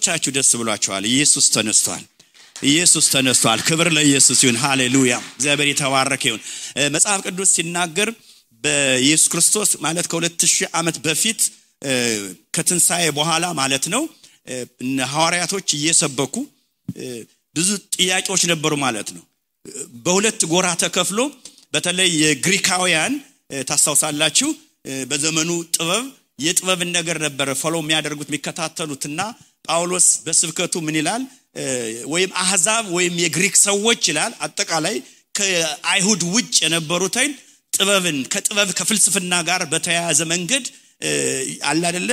ስንቶቻችሁ ደስ ብሏችኋል? ኢየሱስ ተነስቷል። ኢየሱስ ተነስቷል። ክብር ለኢየሱስ ይሁን። ሃሌሉያ። እግዚአብሔር የተባረከ ይሁን። መጽሐፍ ቅዱስ ሲናገር በኢየሱስ ክርስቶስ ማለት ከ2000 ዓመት በፊት ከትንሳኤ በኋላ ማለት ነው ሐዋርያቶች እየሰበኩ ብዙ ጥያቄዎች ነበሩ ማለት ነው። በሁለት ጎራ ተከፍሎ በተለይ የግሪካውያን ታስታውሳላችሁ በዘመኑ የጥበብን ነገር ነበር ፎሎ የሚያደርጉት የሚከታተሉትና ጳውሎስ በስብከቱ ምን ይላል? ወይም አህዛብ ወይም የግሪክ ሰዎች ይላል አጠቃላይ ከአይሁድ ውጭ የነበሩትን ጥበብን ከፍልስፍና ጋር በተያያዘ መንገድ አለ አይደለ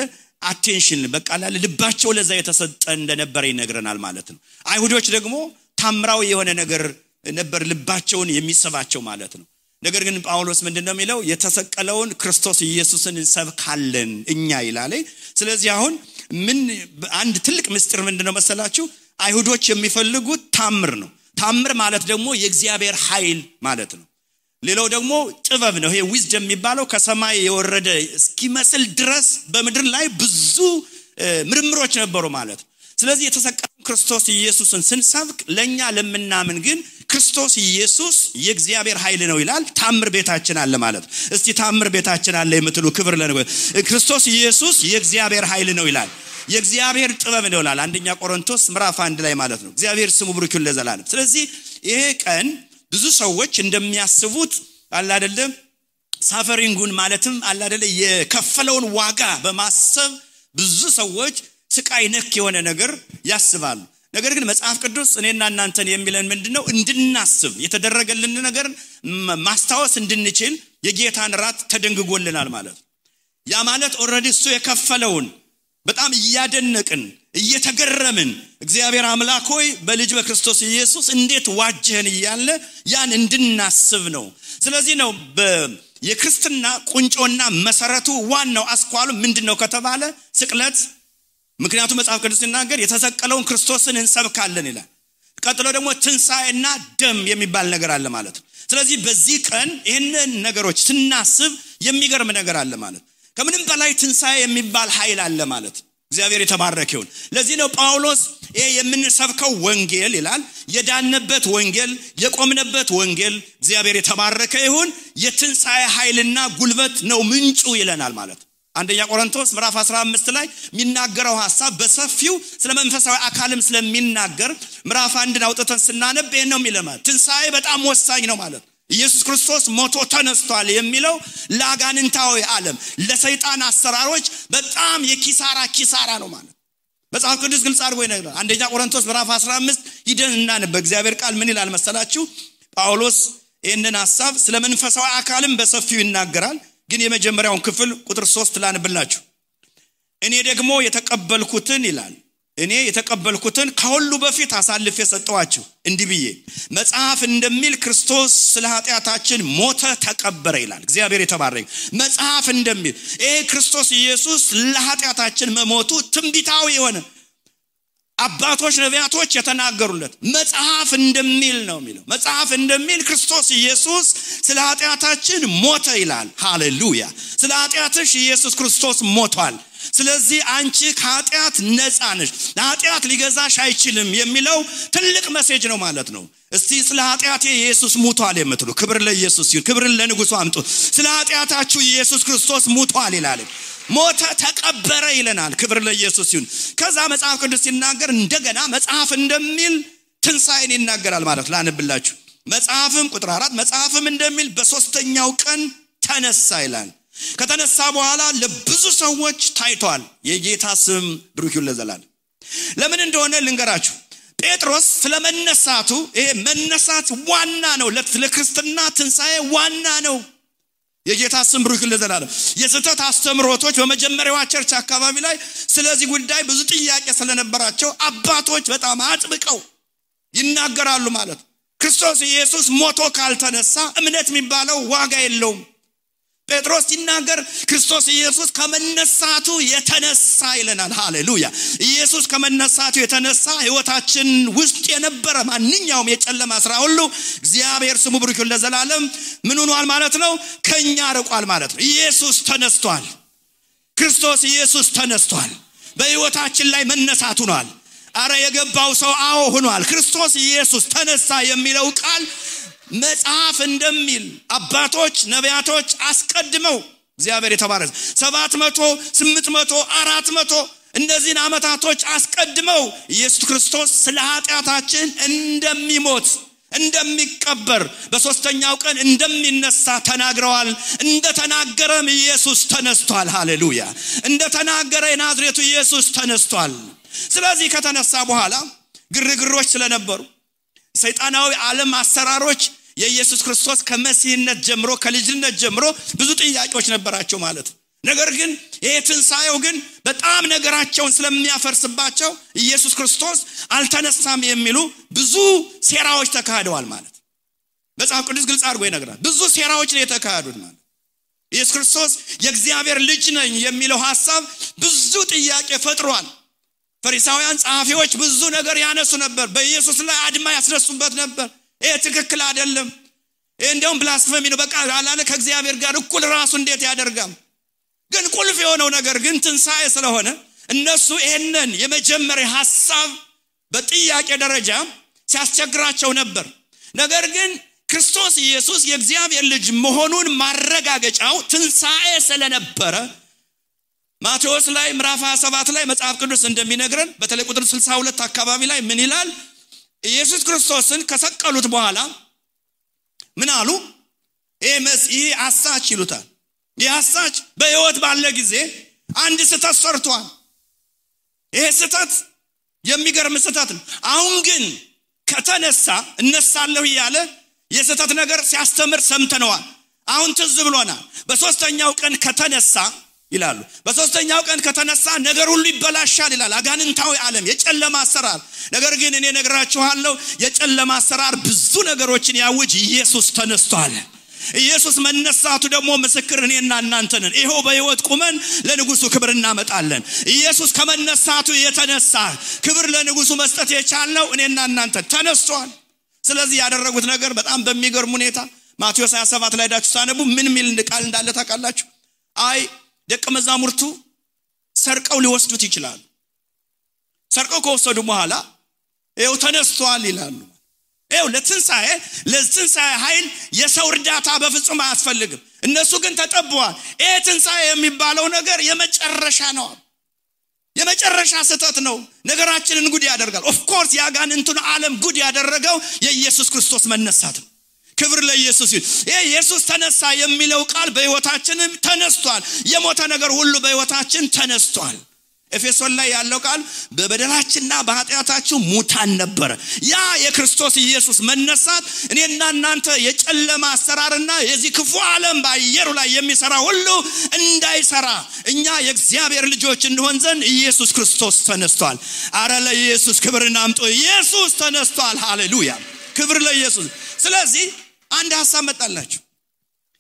አቴንሽን በቃ ልባቸው ለዛ የተሰጠ እንደነበረ ይነግረናል ማለት ነው። አይሁዶች ደግሞ ታምራዊ የሆነ ነገር ነበር ልባቸውን የሚሰባቸው ማለት ነው። ነገር ግን ጳውሎስ ምንድነው የሚለው? የተሰቀለውን ክርስቶስ ኢየሱስን እንሰብካለን እኛ ይላል። ስለዚህ አሁን ምን አንድ ትልቅ ምስጢር ምንድነው መሰላችሁ? አይሁዶች የሚፈልጉት ታምር ነው። ታምር ማለት ደግሞ የእግዚአብሔር ኃይል ማለት ነው። ሌላው ደግሞ ጥበብ ነው። ይሄ ዊዝደም የሚባለው ከሰማይ የወረደ እስኪመስል ድረስ በመድር ላይ ብዙ ምርምሮች ነበሩ ማለት ነው። ስለዚህ የተሰቀለው ክርስቶስ ኢየሱስን ስንሰብክ ለኛ ለምናምን ግን ክርስቶስ ኢየሱስ የእግዚአብሔር ኃይል ነው ይላል። ታምር ቤታችን አለ ማለት ነው። እስቲ ታምር ቤታችን አለ የምትሉ ክብር ለነገር ክርስቶስ ኢየሱስ የእግዚአብሔር ኃይል ነው ይላል። የእግዚአብሔር ጥበብ ነው ይላል አንደኛ ቆሮንቶስ ምዕራፍ 1 ላይ ማለት ነው። እግዚአብሔር ስሙ ብሩክ ይሁን ለዘላለም። ስለዚህ ይሄ ቀን ብዙ ሰዎች እንደሚያስቡት አለ አይደለም ሳፈሪንጉን ማለትም አለ አይደለም የከፈለውን ዋጋ በማሰብ ብዙ ሰዎች ስቃይ ነክ የሆነ ነገር ያስባሉ። ነገር ግን መጽሐፍ ቅዱስ እኔና እናንተን የሚለን ምንድነው? እንድናስብ የተደረገልን ነገር ማስታወስ እንድንችል የጌታን ራት ተደንግጎልናል ማለት ነው። ያ ማለት ኦሬዲ እሱ የከፈለውን በጣም እያደነቅን እየተገረምን እግዚአብሔር አምላክ ሆይ በልጅ በክርስቶስ ኢየሱስ እንዴት ዋጀህን እያለ ያን እንድናስብ ነው። ስለዚህ ነው የክርስትና ቁንጮና መሰረቱ ዋናው አስኳሉ ምንድነው ከተባለ ስቅለት። ምክንያቱም መጽሐፍ ቅዱስ ሲናገር የተሰቀለውን ክርስቶስን እንሰብካለን ይላል። ቀጥሎ ደግሞ ትንሳኤና ደም የሚባል ነገር አለ ማለት ነው። ስለዚህ በዚህ ቀን ይሄንን ነገሮች ስናስብ የሚገርም ነገር አለ ማለት ነው። ከምንም በላይ ትንሳኤ የሚባል ኃይል አለ ማለት ነው። እግዚአብሔር የተባረከ ይሁን። ለዚህ ነው ጳውሎስ ይሄ የምንሰብከው ወንጌል ይላል የዳንበት ወንጌል የቆምነበት ወንጌል እግዚአብሔር የተባረከ ይሁን የትንሳኤ ኃይልና ጉልበት ነው ምንጩ ይለናል ማለት ነው። አንደኛ ቆሮንቶስ ምዕራፍ 15 ላይ የሚናገረው ሐሳብ በሰፊው ስለ መንፈሳዊ አካልም ስለሚናገር ምዕራፍ 1 አውጥተን ስናነብ ይሄን ነው የሚለው። ትንሳኤ በጣም ወሳኝ ነው ማለት ነው። ኢየሱስ ክርስቶስ ሞቶ ተነስቷል የሚለው ለአጋንንታዊ ዓለም ለሰይጣን አሰራሮች በጣም የኪሳራ ነው ማለት መጽሐፍ ቅዱስ ግልጽ አድርጎ ይነግራል። አንደኛ ቆሮንቶስ ምዕራፍ 15 ሂደንና በእግዚአብሔር ቃል ምን ይላል መሰላችሁ? ጳውሎስ ይሄንን ሐሳብ ስለ መንፈሳዊ አካልም በሰፊው ይናገራል። ግን የመጀመሪያውን ክፍል ቁጥር 3 ላንብላችሁ። እኔ ደግሞ የተቀበልኩትን ይላል እኔ የተቀበልኩትን ከሁሉ በፊት አሳልፌ ሰጠዋችሁ እንዲህ ብዬ መጽሐፍ እንደሚል ክርስቶስ ስለ ኃጢአታችን ሞተ ተቀበረ ይላል። እግዚአብሔር የተባረከ መጽሐፍ እንደሚል ይሄ ክርስቶስ ኢየሱስ ለኃጢአታችን መሞቱ ትንቢታዊ የሆነ አባቶች ነቢያቶች የተናገሩለት መጽሐፍ እንደሚል ነው የሚለው። መጽሐፍ እንደሚል ክርስቶስ ኢየሱስ ስለ ኃጢአታችን ሞተ ይላል። ሃሌሉያ። ስለ ኃጢአትሽ ኢየሱስ ክርስቶስ ሞቷል። ስለዚህ አንቺ ከኃጢአት ነፃ ነሽ። ኃጢአት ሊገዛሽ አይችልም የሚለው ትልቅ ሜሴጅ ነው ማለት ነው። እስቲ ስለ ኃጢአቴ ኢየሱስ ሞቷል የምትሉ ክብር ለኢየሱስ ይሁን። ክብር ለንጉሱ አምጡ። ስለ ኃጢአታችሁ ኢየሱስ ክርስቶስ ሞቷል ይላል። ሞተ ተቀበረ ይለናል። ክብር ለኢየሱስ ይሁን። ከዛ መጽሐፍ ቅዱስ ሲናገር እንደገና መጽሐፍ እንደሚል ትንሳኤን ይናገራል ማለት ላንብላችሁ። መጽሐፍም ቁጥር 4 መጽሐፍም እንደሚል በሶስተኛው ቀን ተነሳ ይላል። ከተነሳ በኋላ ለብዙ ሰዎች ታይቷል። የጌታ ስም ብሩክ ይሁን ለዘላለም። ለምን እንደሆነ ልንገራችሁ። ጴጥሮስ ስለመነሳቱ ይሄ መነሳት ዋና ነው ለክርስትና ትንሳኤ ዋና ነው። የጌታ ስም ብሩክ ይሁን ለዘላለም። የስተት አስተምሮቶች በመጀመሪያው ቸርች አካባቢ ላይ ስለዚህ ጉዳይ ብዙ ጥያቄ ስለነበራቸው አባቶች በጣም አጥብቀው ይናገራሉ ማለት ክርስቶስ ኢየሱስ ሞቶ ካልተነሳ እምነት የሚባለው ዋጋ የለውም። ጴጥሮስ ሲናገር ክርስቶስ ኢየሱስ ከመነሳቱ የተነሳ ይለናል። ሃሌሉያ። ኢየሱስ ከመነሳቱ የተነሳ ህይወታችን ውስጥ የነበረ ማንኛውም የጨለማ ስራ ሁሉ እግዚአብሔር ስሙ ብሩክ ይሁን ለዘላለም ምን ሆኗል ማለት ነው? ከኛ ርቋል ማለት ነው። ኢየሱስ ተነስቷል። ክርስቶስ ኢየሱስ ተነስቷል። በህይወታችን ላይ መነሳቱ ሆኗል። አረ የገባው ሰው አዎ ሆኗል ክርስቶስ ኢየሱስ ተነሳ የሚለው ቃል መጽሐፍ እንደሚል አባቶች ነቢያቶች አስቀድመው እግዚአብሔር የተባረከ 700 800 400 እነዚህን አመታቶች አስቀድመው ኢየሱስ ክርስቶስ ስለ ኃጢአታችን እንደሚሞት እንደሚቀበር በሶስተኛው ቀን እንደሚነሳ ተናግረዋል እንደተናገረም ኢየሱስ ተነስቷል ሃሌሉያ እንደተናገረ የናዝሬቱ ኢየሱስ ተነስቷል ስለዚህ ከተነሳ በኋላ ግርግሮች ስለነበሩ ሰይጣናዊ ዓለም አሰራሮች የኢየሱስ ክርስቶስ ከመሲህነት ጀምሮ ከልጅነት ጀምሮ ብዙ ጥያቄዎች ነበራቸው ማለት ነገር ግን የትንሳኤው ግን በጣም ነገራቸውን ስለሚያፈርስባቸው ኢየሱስ ክርስቶስ አልተነሳም የሚሉ ብዙ ሴራዎች ተካሂደዋል ማለት መጽሐፍ ቅዱስ ግልጽ አድርጎ ይነግራል ብዙ ሴራዎች ነው የተካሄዱት ማለት ኢየሱስ ክርስቶስ የእግዚአብሔር ልጅ ነኝ የሚለው ሐሳብ ብዙ ጥያቄ ፈጥሯል ፈሪሳውያን ጻፊዎች ብዙ ነገር ያነሱ ነበር በኢየሱስ ላይ አድማ ያስነሱበት ነበር ይሄ ትክክል አይደለም ይሄ እንደውም ብላስፈሚ ነው በቃ አላለ ከእግዚአብሔር ጋር እኩል ራሱ እንዴት ያደርጋል ግን ቁልፍ የሆነው ነገር ግን ትንሳኤ ስለሆነ እነሱ ይሄንን የመጀመሪያ ሐሳብ በጥያቄ ደረጃ ሲያስቸግራቸው ነበር ነገር ግን ክርስቶስ ኢየሱስ የእግዚአብሔር ልጅ መሆኑን ማረጋገጫው ትንሳኤ ስለነበረ ማቴዎስ ላይ ምዕራፍ 27 ላይ መጽሐፍ ቅዱስ እንደሚነግረን በተለይ ቁጥር 62 አካባቢ ላይ ምን ይላል ኢየሱስ ክርስቶስን ከሰቀሉት በኋላ ምን አሉ ይሄ አሳች ይሉታል ይያሳች በህይወት ባለ ጊዜ አንድ ስህተት ሰርቷል ይሄ ስህተት የሚገርም ስህተት ነው አሁን ግን ከተነሳ እነሳለሁ ይያለ የስህተት ነገር ሲያስተምር ሰምተነዋል አሁን ትዝ ብሎናል በሶስተኛው ቀን ከተነሳ ይላሉ በሶስተኛው ቀን ከተነሳ ነገር ሁሉ ይበላሻል ይላል አጋንንታዊ ዓለም የጨለማ አሰራር ነገር ግን እኔ ነግራችኋለሁ የጨለማ አሰራር ብዙ ነገሮችን ያውጅ ኢየሱስ ተነስቷል ኢየሱስ መነሳቱ ደግሞ ምስክር እኔና እናንተ ነን ይሄው በህይወት ቁመን ለንጉሱ ክብር እናመጣለን ኢየሱስ ከመነሳቱ የተነሳ ክብር ለንጉሱ መስጠት የቻለው እኔና እናንተ ተነስቷል ስለዚህ ያደረጉት ነገር በጣም በሚገርም ሁኔታ ማቴዎስ 27 ላይ ዳችሁ ሳነቡ ምን ሚል ቃል እንዳለ ታውቃላችሁ አይ ደቀ መዛሙርቱ ሰርቀው ሊወስዱት ይችላል ሰርቀው ከወሰዱ በኋላ ይሄው ተነስቷል ይላሉ ይሄው ለትንሳኤ ኃይል የሰው እርዳታ በፍጹም አያስፈልግም እነሱ ግን ተጠበዋል ይሄ ትንሳኤ የሚባለው ነገር የመጨረሻ ነው የመጨረሻ ስህተት ነው ነገራችንን ጉድ ያደርጋል ኦፍ ኮርስ ያጋንንቱን ዓለም ጉድ ያደረገው የኢየሱስ ክርስቶስ መነሳት ነው ክብር ለኢየሱስ ይሁን ይሄ ኢየሱስ ተነሳ የሚለው ቃል በህይወታችንም ተነስቷል የሞተ ነገር ሁሉ በህይወታችን ተነስቷል ኤፌሶን ላይ ያለው ቃል በበደላችንና በኃጢአታችን ሙታን ነበር ያ የክርስቶስ ኢየሱስ መነሳት እኔና እናንተ የጨለማ አሰራርና የዚህ ክፉ ዓለም ባየሩ ላይ የሚሰራ ሁሉ እንዳይሰራ እኛ የእግዚአብሔር ልጆች እንሆን ዘንድ ኢየሱስ ክርስቶስ ተነስቷል አረ ለኢየሱስ ክብርን አምጡ ኢየሱስ ተነስቷል ሃሌሉያ ክብር ለኢየሱስ ስለዚህ አንድ ሐሳብ መጣላችሁ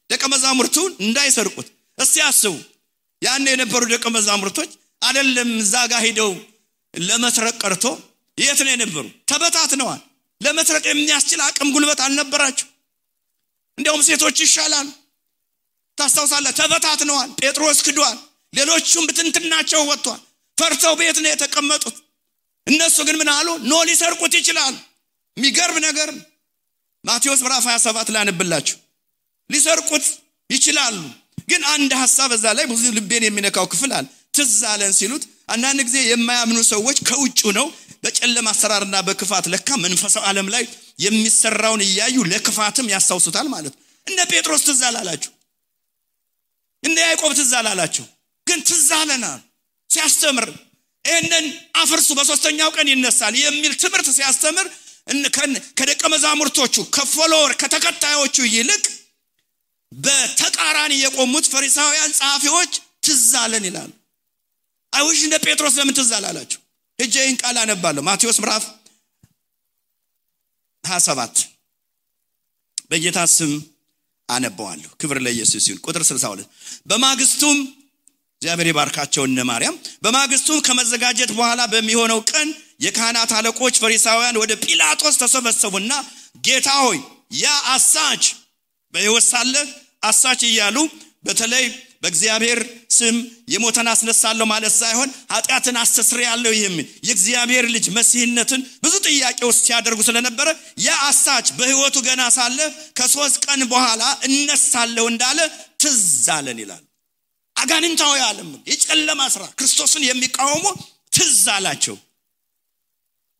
ደቀ መዛሙርቱን እንዳይሰርቁት እስቲ አስቡ ያን የነበሩ ደቀ መዛሙርቶች አይደለም ዛጋ ሄደው ለመስረቅ ቀርቶ የት ነው የነበሩ ተበታትነዋል ለመስረቅ የሚያስችል አቅም ጉልበት አልነበራቸው እንደውም ሴቶች ይሻላል ታስተውሳለህ ተበታትነዋል ጴጥሮስ ክዷል ሌሎቹም ብትንትናቸው ወጥቷል ፈርተው ቤት ነው የተቀመጡት እነሱ ግን ምን አሉ ኖ ሊሰርቁት ይችላል የሚገርም ነገር ማቴዎስ ምዕራፍ 27 ላይ አንብላችሁ ሊሰርቁት ይችላሉ ግን አንድ ሐሳብ እዛ ላይ ብዙ ልቤን የሚነካው ክፍል አለ ትዛለን ሲሉት አንዳንድ ጊዜ የማያምኑ ሰዎች ከውጭ ነው በጨለማ አሰራርና በክፋት ለካ መንፈሳዊ ዓለም ላይ የሚሰራውን ያዩ ለክፋትም ያሳውሱታል ማለት እነ ጴጥሮስ ትዛላላችሁ እነ ያዕቆብ ትዛላላችሁ ግን ትዛለና ሲያስተምር እነን አፍርሱ በሶስተኛው ቀን ይነሳል የሚል ትምህርት ሲያስተምር ከደቀ መዛሙርቶቹ ከፎሎወር ከተከታዮቹ ይልቅ በተቃራኒ የቆሙት ፈሪሳውያን ጻፊዎች ትዛለን ይላሉ አይውሽ እንደ ጴጥሮስ ለምን ትዛላላችሁ እጄን ቃል አነባለሁ ማቴዎስ ምዕራፍ 27 በጌታ ስም አነባዋለሁ ክብር ለኢየሱስ ይሁን ቁጥር 62 በማግስቱም እግዚአብሔር ይባርካቸው እነ ማርያም በማግስቱም ከመዘጋጀት በኋላ በሚሆነው ቀን የካህናት አለቆች ፈሪሳውያን ወደ ጲላጦስ ተሰበሰቡና ጌታ ሆይ ያ አሳች በሕይወት ሳለ አሳች ይያሉ በተለይ በእግዚአብሔር ስም የሞተን አስነሳለሁ ማለት ሳይሆን ኃጢአትን አስተስርያለሁ የሚል የእግዚአብሔር ልጅ መሲህነትን ብዙ ጥያቄዎች ሲያደርጉ ስለነበረ ያአሳች በህይወቱ ገና ሳለ ከ3 ቀን በኋላ እነሳለሁ እንዳለ ትዝ አለን ይላል። አጋንንታዊ ዓለም የጨለማ ስራ ክርስቶስን የሚቃወሙ ትዝ አላቸው።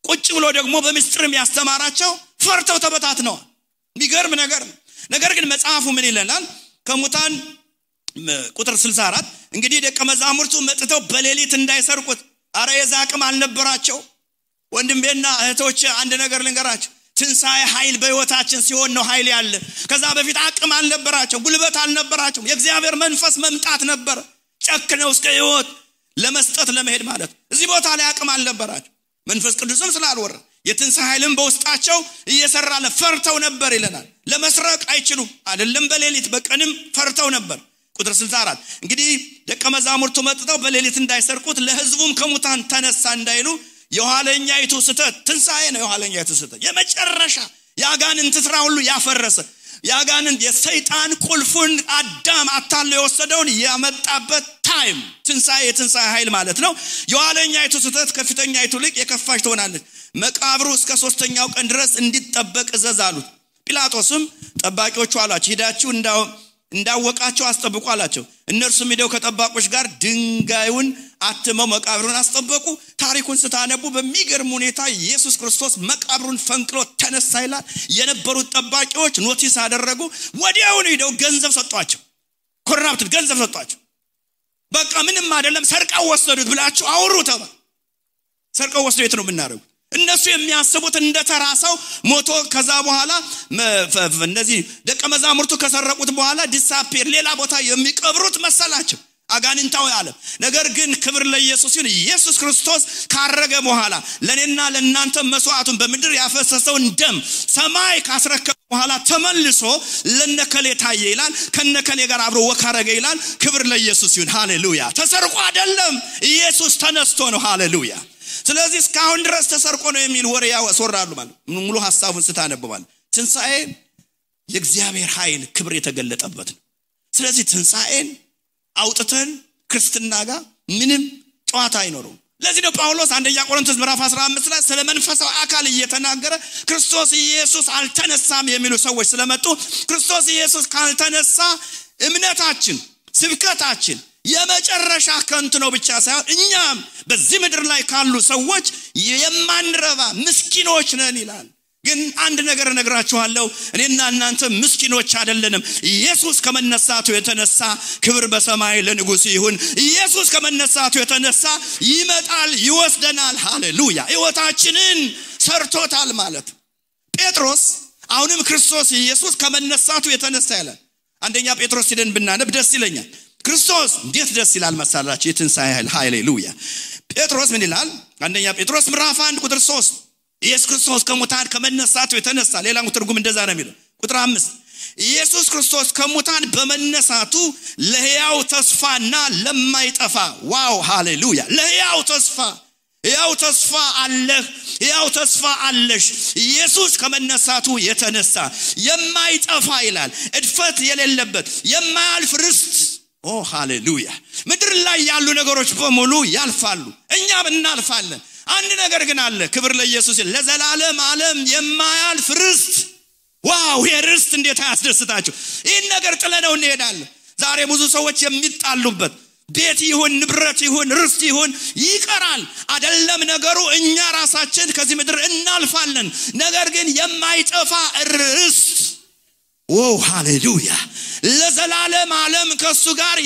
ቁጭ ብሎ ደግሞ በምስጢርም ያስተማራቸው ፈርተው ተበታትነዋል። የሚገርም ነገር ግን መጽሐፉ ምን ይለናል? ከሙታን ቁጥር 64 እንግዲህ ደቀ መዛሙርቱ መጥተው በሌሊት እንዳይሰርቁት አረ የዛቅም አልነበራቸው። ወንድሜና እህቶች አንድ ነገር ልንገራችሁ፣ ትንሣኤ ኃይል በህይወታችን ሲሆን ነው ኃይል ያለ። ከዛ በፊት አቅም አልነበራቸው፣ ጉልበት አልነበራቸው። የእግዚአብሔር መንፈስ መምጣት ነበር ጨክነው እስከ ህይወት ለመስጠት ለመሄድ ማለት። እዚህ ቦታ ላይ አቅም አልነበራቸው። መንፈስ ቅዱስም ስላልወረደ የትንሣኤ ኃይልም በውስጣቸው እየሰራ ፈርተው ነበር ይለናል። ለመስረቅ አይችሉም አይደለም በሌሊት በቀንም ፈርተው ነበር። ቁጥር 64 እንግዲህ ደቀ መዛሙርቱ መጥተው በሌሊት እንዳይሰርቁት ለህዝቡም ከሙታን ተነሳ እንዳይሉ የኋለኛይቱ ስተት ትንሣኤ ነው። የኋለኛይቱ ስተት የመጨረሻ ያጋንንት ስራ ሁሉ ያፈረሰ ያጋንንት የሰይጣን ቁልፉን አዳም አታሎ የወሰደውን ያመጣበት ታይም የትንሣኤ ኃይል ማለት ነው። የኋለኛይቱ ስተት ከፊተኛይቱ ልቅ የከፋች ትሆናለች። መቃብሩ እስከ 3ኛው ቀን ድረስ እንዲጠበቅ እዘዝ አሉት። ጲላጦስም ጠባቂዎቹ አላቸው ሄዳችሁ እንዳወቃቸው አስጠብቁ አላቸው። እነርሱም ሄደው ከጠባቆች ጋር ድንጋዩን አትመው መቃብሩን አስጠበቁ። ታሪኩን ስታነቡ በሚገርም ሁኔታ ኢየሱስ ክርስቶስ መቃብሩን ፈንቅሎ ተነሳ ይላል። የነበሩት ጠባቂዎች ኖቲስ አደረጉ። ወዲያውኑ ሄደው ገንዘብ ሰጧቸው። ኮራፕት ገንዘብ ሰጧቸው። በቃ ምንም አይደለም ሰርቀው ወሰዱት ብላችሁ አውሩ ተባለ። ሰርቀው ወሰዱ የት ነው የምናደርጉት? እነሱ የሚያስቡት እንደተራሰው ሞቶ ከዛ በኋላ እነዚህ ደቀ መዛሙርቱ ከሰረቁት በኋላ ዲሳፒር ሌላ ቦታ የሚቀብሩት መሰላቸው አጋንንታዊ ዓለም። ነገር ግን ክብር ለኢየሱስ ይሁን። ኢየሱስ ክርስቶስ ካረገ በኋላ ለኔና ለእናንተ መስዋዕቱን በምድር ያፈሰሰውን ደም ሰማይ ካስረከበ በኋላ ተመልሶ ለነከሌ ታየ ይላል። ከነከሌ ጋር አብሮ ወካረገ ይላል። ክብር ለኢየሱስ ይሁን። ሃሌሉያ። ተሰርቆ አይደለም ኢየሱስ ተነስቶ ነው። ሃሌሉያ። ስለዚህ እስካሁን ድረስ ተሰርቆ ነው የሚል ወሬ ያወራሉ ማለት ሙሉ ሐሳቡን ስታነብባል ትንሣኤ የእግዚአብሔር ኃይል ክብር የተገለጠበት ነው። ስለዚህ ትንሣኤን አውጥተን ክርስትና ጋር ምንም ጨዋታ አይኖርም። ለዚህ ነው ጳውሎስ አንደኛ ቆሮንቶስ ምዕራፍ 15 ላይ ስለ መንፈሳዊ አካል እየተናገረ ክርስቶስ ኢየሱስ አልተነሳም የሚሉ ሰዎች ስለመጡ ክርስቶስ ኢየሱስ ካልተነሳ እምነታችን ስብከታችን የመጨረሻ ከንቱ ነው ብቻ ሳይሆን እኛም በዚህ ምድር ላይ ካሉ ሰዎች የማንረባ ምስኪኖች ነን ይላል። ግን አንድ ነገር እነግራችኋለሁ፣ እኔና እናንተ ምስኪኖች አይደለንም። ኢየሱስ ከመነሳቱ የተነሳ ክብር በሰማይ ለንጉሥ ይሁን። ኢየሱስ ከመነሳቱ የተነሳ ይመጣል ይወስደናል። ሃሌሉያ። ሕይወታችንን ሰርቶታል ማለት። ጴጥሮስ አሁንም ክርስቶስ ኢየሱስ ከመነሳቱ የተነሳ ይላል። አንደኛ ጴጥሮስ ሄደን ብናነብ ደስ ይለኛል። ክርስቶስ እንዴት ደስ ይላል መሰላችሁ! የትንሣኤ ኃይል። ሃሌሉያ። ጴጥሮስ ምን ይላል? አንደኛ ጴጥሮስ ምዕራፍ 1 ቁጥር 3 ኢየሱስ ክርስቶስ ከሙታን ከመነሳቱ የተነሳ ሌላው ትርጉም እንደዛ ነው የሚለው። ቁጥር 5 ኢየሱስ ክርስቶስ ከሙታን በመነሳቱ ለሕያው ተስፋና ለማይጠፋ ዋው ሃሌሉያ ለሕያው ተስፋ አለህ፣ ሕያው ተስፋ አለሽ። ኢየሱስ ከመነሳቱ የተነሳ የማይጠፋ ይላል እድፈት የሌለበት የማያልፍ ርስት። ኦ ሃሌሉያ። ምድር ላይ ያሉ ነገሮች በሙሉ ያልፋሉ፣ እኛም እናልፋለን። አንድ ነገር ግን አለ። ክብር ለኢየሱስ። ለዘላለም ዓለም የማያልፍ ርስት። ዋው! የርስት እንዴት ያስደስታችሁ! ይህን ነገር ጥለነው እንሄዳለን። ዛሬ ብዙ ሰዎች የሚጣሉበት ቤት ይሁን ንብረት ይሁን ርስት ይሁን ይቀራል አይደለም ነገሩ። እኛ ራሳችን ከዚህ ምድር እናልፋለን። ነገር ግን የማይጠፋ ርስት ኦ ሃሌሉያ ለዘላለም ዓለም ከሱ ጋር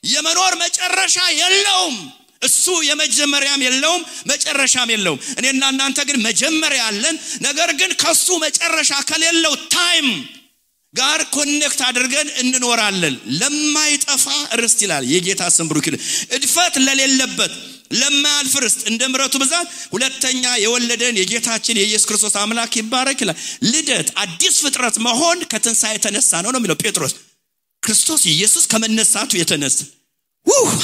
የመኖር መጨረሻ የለውም። እሱ የመጀመሪያም የለውም መጨረሻም የለውም። እኔና እናንተ ግን መጀመሪያ አለን። ነገር ግን ከሱ መጨረሻ ከሌለው ታይም ጋር ኮኔክት አድርገን እንኖራለን። ለማይጠፋ ርስት ይላል። የጌታ ስም ብሩክ ይሁን። እድፈት ለሌለበት ለማያልፍ ርስት እንደ ምሕረቱ ብዛት ሁለተኛ የወለደን የጌታችን የኢየሱስ ክርስቶስ አምላክ ይባረክ ይላል። ልደት አዲስ ፍጥረት መሆን ከትንሣኤ የተነሳ ነው የሚለው ጴጥሮስ። ክርስቶስ ኢየሱስ ከመነሳቱ የተነሳ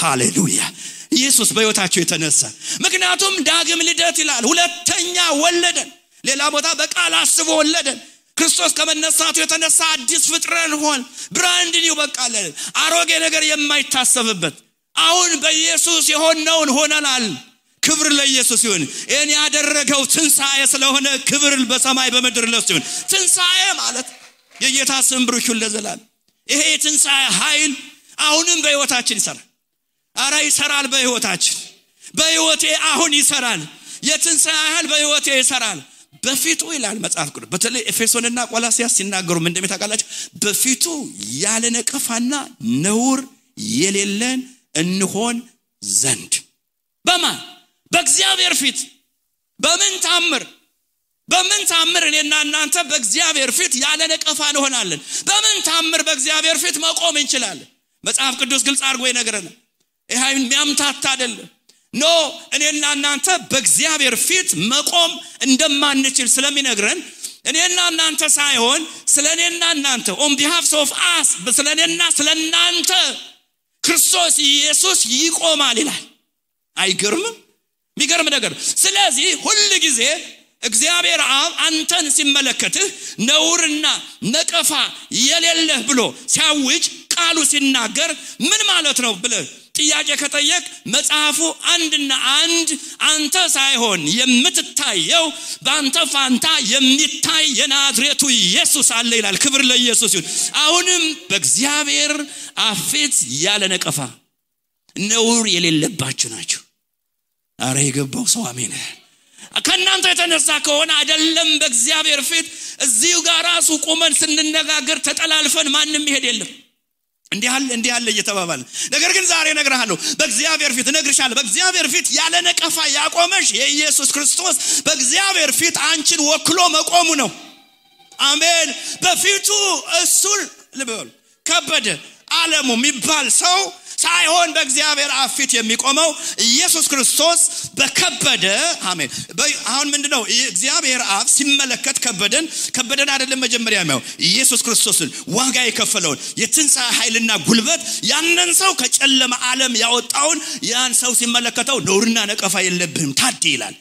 ሃሌሉያ ኢየሱስ በሕይወታቸው የተነሳ። ምክንያቱም ዳግም ልደት ይላል። ሁለተኛ ወለደን። ሌላ ቦታ በቃል አስቦ ወለደን። ክርስቶስ ከመነሳቱ የተነሳ አዲስ ፍጥረት ሆን ብራንድ ኒው በቃለ አሮጌ ነገር የማይታሰብበት አሁን በኢየሱስ የሆነውን ሆነናል ክብር ለኢየሱስ ይሁን እኔ ያደረገው ትንሳኤ ስለሆነ ክብር በሰማይ በመድር ለሱ ይሁን ትንሳኤ ማለት የጌታ ስም ብሩክ ይሁን ለዘላለም ይሄ ትንሳኤ ኃይል አሁንም በህይወታችን ይሰራል አራ ይሰራል በህይወቴ አሁን ይሰራል የትንሳኤ ኃይል በህይወቴ ይሰራል በፊቱ ይላል መጽሐፍ ቅዱስ በተለይ ኤፌሶንና ቆላስያስ ሲናገሩ ምን እንደሚታቃላችሁ በፊቱ ያለ ነቀፋና ነውር የሌለን እንሆን ዘንድ በማን በእግዚአብሔር ፊት በምን ታምር እኔና እናንተ በእግዚአብሔር ፊት ያለ ነቀፋ እንሆናለን በምን ታምር በእግዚአብሔር ፊት መቆም እንችላለን መጽሐፍ ቅዱስ ግልጽ አድርጎ ይነግረናል ይሄ የሚያምታታ አይደለም ኖ እኔና እናንተ በእግዚአብሔር ፊት መቆም እንደማንችል ስለሚነግረን እኔና እናንተ ሳይሆን ስለኔና እናንተ on behalf of us ስለኔና ስለናንተ ክርስቶስ ኢየሱስ ይቆማል ይላል አይገርምም የሚገርም ነገር ስለዚህ ሁሉ ጊዜ እግዚአብሔር አብ አንተን ሲመለከትህ ነውርና ነቀፋ የሌለህ ብሎ ሲያውጅ ቃሉ ሲናገር ምን ማለት ነው ብለህ ጥያቄ ከጠየቅ መጽሐፉ አንድና አንድ አንተ ሳይሆን የምትታየው በአንተ ፋንታ የሚታይ የናዝሬቱ ኢየሱስ አለ ይላል ክብር ለኢየሱስ ይሁን አሁንም በእግዚአብሔር አፊት ያለ ነቀፋ ነውር የሌለባችሁ ናችሁ አረ የገባው ሰው አሜን ከናንተ የተነሳ ከሆነ አይደለም በእግዚአብሔር ፊት እዚሁ ጋር ራሱ ቆመን ስንነጋገር ተጠላልፈን ማንንም ይሄድ የለም እንዲህ ያለ እየተባባለ ነገር ግን ዛሬ ነግራለሁ በእግዚአብሔር ፊት ነግርሻለሁ በእግዚአብሔር ፊት ያለ ነቀፋ ያቆመሽ የኢየሱስ ክርስቶስ በእግዚአብሔር ፊት አንቺን ወክሎ መቆሙ ነው አሜን በፊቱ እሱን ልበል ከበደ ዓለሙ የሚባል ሰው ሳይሆን በእግዚአብሔር አፊት የሚቆመው ኢየሱስ ክርስቶስ በከበደ አሜን አሁን ምንድነው እግዚአብሔር አብ ሲመለከት ከበደን አይደለም መጀመሪያ የሚያው ኢየሱስ ክርስቶስን ዋጋ የከፈለውን የትንሣኤ ኃይልና ጉልበት ያንን ሰው ከጨለማ ዓለም ያወጣውን ያን ሰው ሲመለከተው ነውርና ነቀፋ የለብህም ታድ ይላል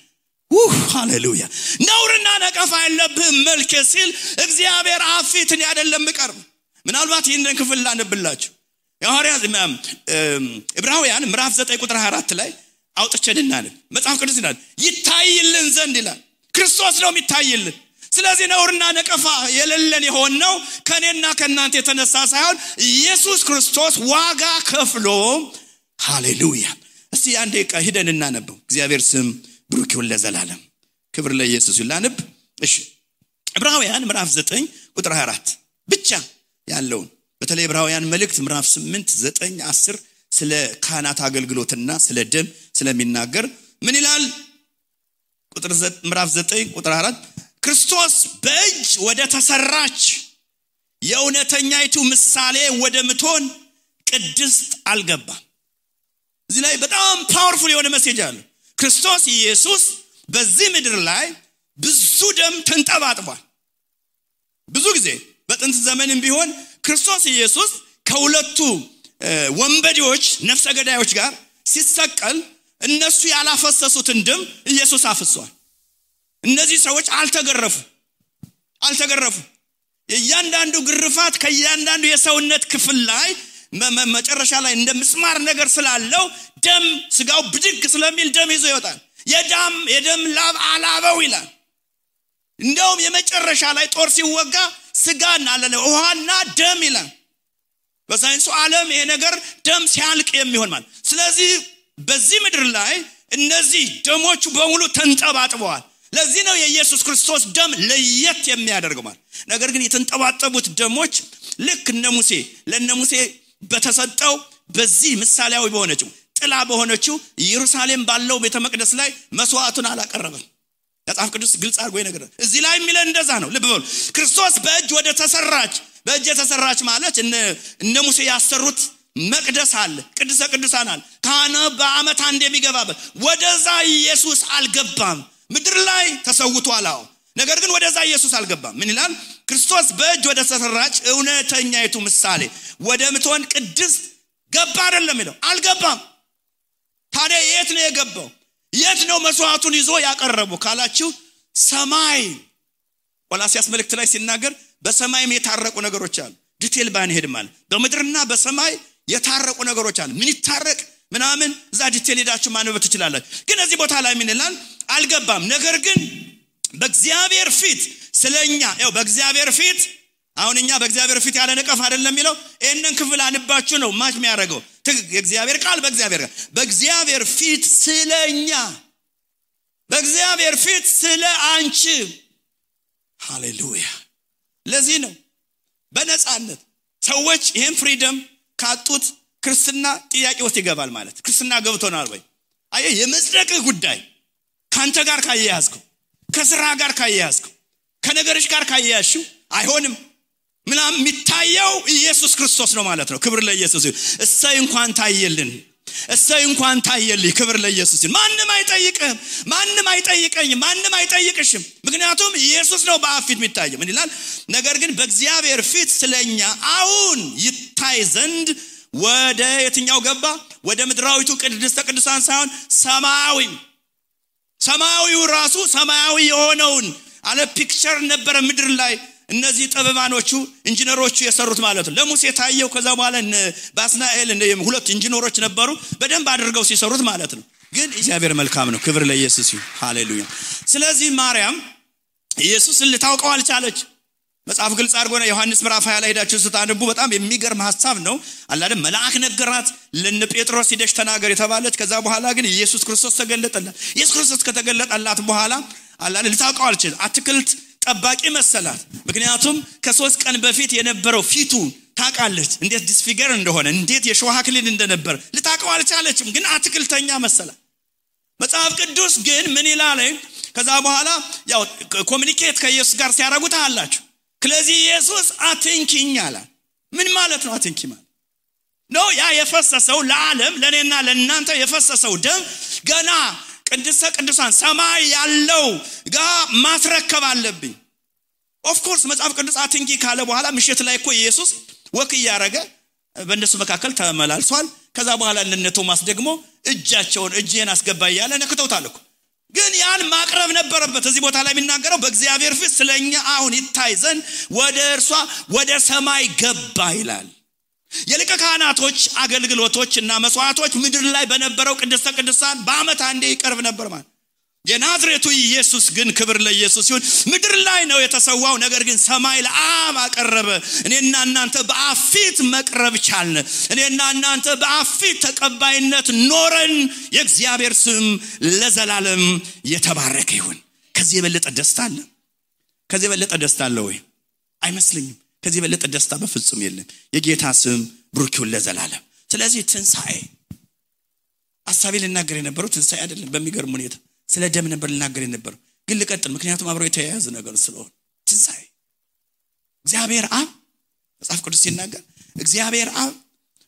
ሃሌሉያ ነውርና ነቀፋ የለብህም መልከ ሲል እግዚአብሔር አፊትን አይደለም ቀርብ ምናልባት ይሄንን ክፍል ላነብላችሁ የሐዋርያት ዕብራውያን ምዕራፍ 9 ቁጥር 24 ላይ አውጥቸንናል መጽሐፍ ቅዱስ ይላል ይታይልን ዘንድ ይላል ክርስቶስ ነው የሚታይልን ስለዚህ ነውርና ነቀፋ የሌለን የሆነው ከኔና ከናንተ የተነሳ ሳይሆን ኢየሱስ ክርስቶስ ዋጋ ከፍሎ ሃሌሉያ እስቲ አንዴ ሄደን እናነበው እግዚአብሔር ስም ብሩክ ይሁን ለዘላለም ክብር ለኢየሱስ ይላንብ እሺ ዕብራውያን ምዕራፍ 9 ቁጥር 24 ብቻ ያለው በተለይ ዕብራውያን መልእክት ምዕራፍ 8 9 10 ስለ ካህናት አገልግሎትና ስለ ደም ስለሚናገር ምን ይላል ቁጥር ምዕራፍ 9 ቁጥር 4 ክርስቶስ በእጅ ወደ ተሰራች የእውነተኛይቱ ምሳሌ ወደ ምትሆን ቅድስት አልገባም እዚህ ላይ በጣም ፓወርፉል የሆነ ሜሴጅ አለ ክርስቶስ ኢየሱስ በዚህ ምድር ላይ ብዙ ደም ተንጠባጥቧል ብዙ ጊዜ በጥንት ዘመንም ቢሆን ክርስቶስ ኢየሱስ ከሁለቱ ወንበዴዎች ነፍሰ ገዳዮች ጋር ሲሰቀል እነሱ ያላፈሰሱትን ደም ኢየሱስ አፍሷል እነዚህ ሰዎች አልተገረፉ የእያንዳንዱ ግርፋት ከእያንዳንዱ የሰውነት ክፍል ላይ መጨረሻ ላይ እንደምስማር ነገር ስላለው ደም ስጋው ብድግ ስለሚል ደም ይዞ ይወጣል የደም ላብ አላበው ይላል እንደውም የመጨረሻ ላይ ጦር ሲወጋ ስጋና ውሃና ደም ይላል በሳይንሱ ዓለም ይሄ ነገር ደም ሲያልቅ የሚሆን ማለት ስለዚህ በዚህ ምድር ላይ እነዚህ ደሞቹ በሙሉ ተንጠባጥበዋል ለዚህ ነው የኢየሱስ ክርስቶስ ደም ለየት የሚያደርገው ማለት ነገር ግን የተንጠባጠቡት ደሞች ልክ ለነሙሴ በተሰጠው በዚህ ምሳሌያዊ በሆነችው ጥላ በሆነችው ኢየሩሳሌም ባለው ቤተ መቅደስ ላይ መስዋዕቱን አላቀረበም መጽሐፍ ቅዱስ ግልጽ አድርጎ ይነግራል እዚህ ላይ የሚለን እንደዛ ነው ልብ በሉ ክርስቶስ በእጅ የተሰራች ማለት እነ ሙሴ ያሰሩት መቅደስ አለ ቅድስተ ቅዱሳን አለ ካህኑ በአመት አንድ የሚገባበት ወደዛ ኢየሱስ አልገባም ምድር ላይ ተሰውቷል ነገር ግን ወደዛ ኢየሱስ አልገባም ምን ይላል ክርስቶስ በእጅ ወደ ተሰራች እውነተኛይቱ ምሳሌ ወደ ምትሆን ቅድስት ገባ አይደለም ይለው አልገባም ታዲያ የት ነው የገባው የት ነው መስዋዕቱን ይዞ ያቀረበው ካላችሁ ሰማይ ቆላስይስ መልእክት ላይ ሲናገር በሰማይም የታረቁ ነገሮች አሉ ዲቴል ባንሄድ ማለት በምድርና በሰማይ የታረቁ ነገሮች አሉ ምን ይታረቅ ምናምን እዛ ዲቴል ሄዳችሁ ማንበብ ትችላላችሁ ግን እዚህ ቦታ ላይ ምን ይላል አልገባም ነገር ግን በእግዚአብሔር ፊት ስለኛ ያው በእግዚአብሔር ፊት አሁንኛ በእግዚአብሔር ፊት ያለ ነቀፍ አይደለም የሚለው እነን ክፍል አንባችሁ ነው ማች የሚያደርገው የእግዚአብሔር ቃል በእግዚአብሔር ፊት ስለኛ በእግዚአብሔር ፊት ስለ አንቺ ሃሌሉያ ለዚህ ነው በነጻነት ሰዎች ይሄን ፍሪደም ካጡት ክርስትና ጥያቄ ውስጥ ይገባል ማለት ክርስትና ገብቶናል ወይ አየ የመጽደቅ ጉዳይ ካንተ ጋር ካያያዝከው ከስራ ጋር ካያያዝከው ከነገርሽ ጋር ካያያዝሽው አይሆንም ምናም የሚታየው ኢየሱስ ክርስቶስ ነው ማለት ነው ክብር ለኢየሱስ ይሁን እሰይ እንኳን ታየልኝ ክብር ለኢየሱስ ይሁን ማንንም አይጠይቀኝም ማንንም አይጠይቅሽም ምክንያቱም ኢየሱስ ነው በአፊት የሚታየው ምን ይላል ነገር ግን በእግዚአብሔር ፊት ስለኛ አሁን ይታይ ዘንድ ወደ የትኛው ገባ ወደ ምድራዊቱ ቅድስተ ቅዱሳን ሳይሆን ሰማያዊው ራሱ ሰማያዊ የሆነውን አለ ፒክቸር ነበር ምድር ላይ እነዚህ ጠበባኖቹ ኢንጂነሮቹ የሰሩት ማለት ነው ለሙሴ ታየው ከዛ በኋላ ባስናኤል ሁለት ኢንጂነሮች ነበሩ በደንብ አድርገው ሲሰሩት ማለት ነው ግን እግዚአብሔር መልካም ነው ክብር ለኢየሱስ ይሁን ሃሌሉያ ስለዚህ ማርያም ኢየሱስን ልታውቀው አልቻለች መጽሐፍ ግልጽ አድርጎ ነው ዮሐንስ ምዕራፍ 20 ላይ ሄዳችሁ ስታነቡ በጣም የሚገርም ሐሳብ ነው አላደ መልአክ ነገራት ለነ ጴጥሮስ ሂደሽ ተናገር የተባለች ከዛ በኋላ ግን ኢየሱስ ክርስቶስ ተገለጠላት ኢየሱስ ክርስቶስ ከተገለጠላት በኋላ አላደ ልታውቀው አልቻለች አትክልት ጠባቂ መሰላት ምክንያቱም ከ3 ቀን በፊት የነበረው ፊቱ ታቃለች እንዴት ዲስፊገር እንደሆነ እንዴት የሾህ አክሊል እንደነበር ልታውቀው አልቻለችም ግን አትክልተኛ መሰላት መጽሐፍ ቅዱስ ግን ምን ይላል ከዛ በኋላ ያው ኮሙኒኬት ከኢየሱስ ጋር ሲያረጉት አላችሁ ስለዚህ ኢየሱስ አትንኪኝ አለ ምን ማለት ነው አትንኪ ማለት ነው ያ የፈሰሰው ለዓለም ለኔና ለእናንተ የፈሰሰው ደም ገና ቅድስተ ቅዱሳን ሰማይ ያለው ጋር ማስረከብ አለብኝ ኦፍ ኮርስ መጽሐፍ ቅዱስ አትንኪ ካለ በኋላ ምሽት ላይ እኮ ኢየሱስ ወክ ያረገ በእነሱ መካከል ተመላልሷል ከዛ በኋላ ለነ ቶማስ ደግሞ እጄን አስገባ ያለ ነክተውታል እኮ ግን ያን ማቅረብ ነበረበት እዚህ ቦታ ላይ የሚናገረው በእግዚአብሔር ፊት ስለኛ አሁን ይታይ ዘንድ ወደ ሰማይ ገባ ይላል የሊቀ ካህናቶች አገልግሎቶችና መስዋዕቶች ምድር ላይ በነበረው ቅድስተ ቅዱሳን በአመት አንዴ ይቀርብ ነበር ማለት የናዝሬቱ ኢየሱስ ግን ክብር ለኢየሱስ ይሁን ምድር ላይ ነው የተሰዋው ነገር ግን ሰማይ ለአብ አቀረበ እኔና እናንተ በአፊት መቅረብ ቻልን እኔና እናንተ በአፊት ተቀባይነት ኖረን የእግዚአብሔር ስም ለዘላለም የተባረከ ይሁን ከዚህ የበለጠ ደስታ አለ ወይ አይመስልኝም ከዚህ የበለጠ ደስታ በፍጹም የለም የጌታ ስም ብሩክ ይሁን ለዘላለም ስለዚህ ትንሳኤ አሳቢ ልናገር የነበረው ትንሳኤ አይደለም በሚገርም ሁኔታ ስለ ደም ነበር ልናገር የነበረው ግን ልቀጥል ምክንያቱም አብረው የተያያዘ ነገር ስለሆነ ትንሳኤ እግዚአብሔር አብ መጽሐፍ ቅዱስ ሲናገር እግዚአብሔር አብ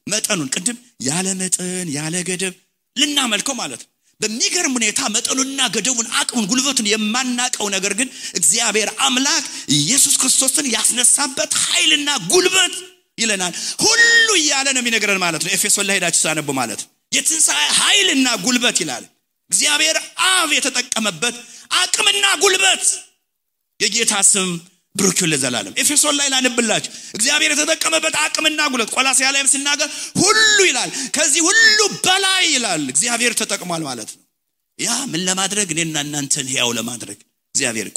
መጠኑን ቅድም ያለ መጠን ያለ ገደብ ልናመልከው ማለት ነው በሚገርም ሁኔታ መጠኑና ገደቡን አቅሙን ጉልበቱን የማናቀው ነገር ግን እግዚአብሔር አምላክ ኢየሱስ ክርስቶስን ያስነሳበት ኃይልና ጉልበት ይለናል ሁሉ ያለ ነው የሚነገረን ማለት ነው ኤፌሶን ላይ ሄዳችሁ ሳነቡ ማለት የትንሳኤ ኃይልና ጉልበት ይላል እግዚአብሔር አብ የተጠቀመበት አቅምና ጉልበት የጌታ ስም ብሩክ ይሁን ለዘላለም ኤፌሶን ላይ ላንብላችሁ እግዚአብሔር የተጠቀመበት አቅምና ጉልበት ቆላስይስ ላይም ሲናገር ሁሉ ይላል ከዚህ ሁሉ በላይ ይላል እግዚአብሔር ተጠቅሟል ማለት ነው ያ ምን ለማድረግ እኔና እናንተን ሕያው ለማድረግ እግዚአብሔር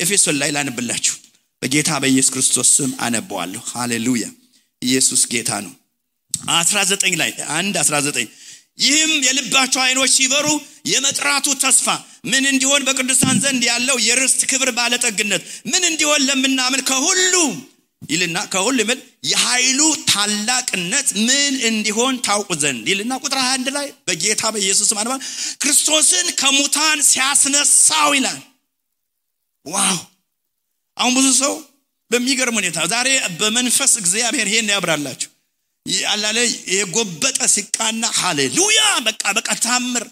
ኤፌሶን ላይ ላንብላችሁ በጌታ በኢየሱስ ክርስቶስ ስም አነባዋለሁ ሃሌሉያ ኢየሱስ ጌታ ነው 19 ላይ 1:19 ይህም የልባቸው አይኖች ሲበሩ የመጥራቱ ተስፋ ምን እንዲሆን በቅዱሳን ዘንድ ያለው የርስት ክብር ባለጠግነት ምን እንዲሆን ለምናምን ከሁሉ ይልና ከሁሉ ምን የኃይሉ ታላቅነት ምን እንዲሆን ታውቁ ዘንድ ይልና ቁጥር 21 ላይ በጌታ በኢየሱስ ስም አንባ ክርስቶስን ከሙታን ሲያስነሳው ይላል ዋው አሁን ብዙ ሰው በሚገርም ሁኔታ ዛሬ በመንፈስ እግዚአብሔር ይሄን ያብራላችሁ ያላለ የጎበጠ ሲቃና ሃሌሉያ በቃ ታምር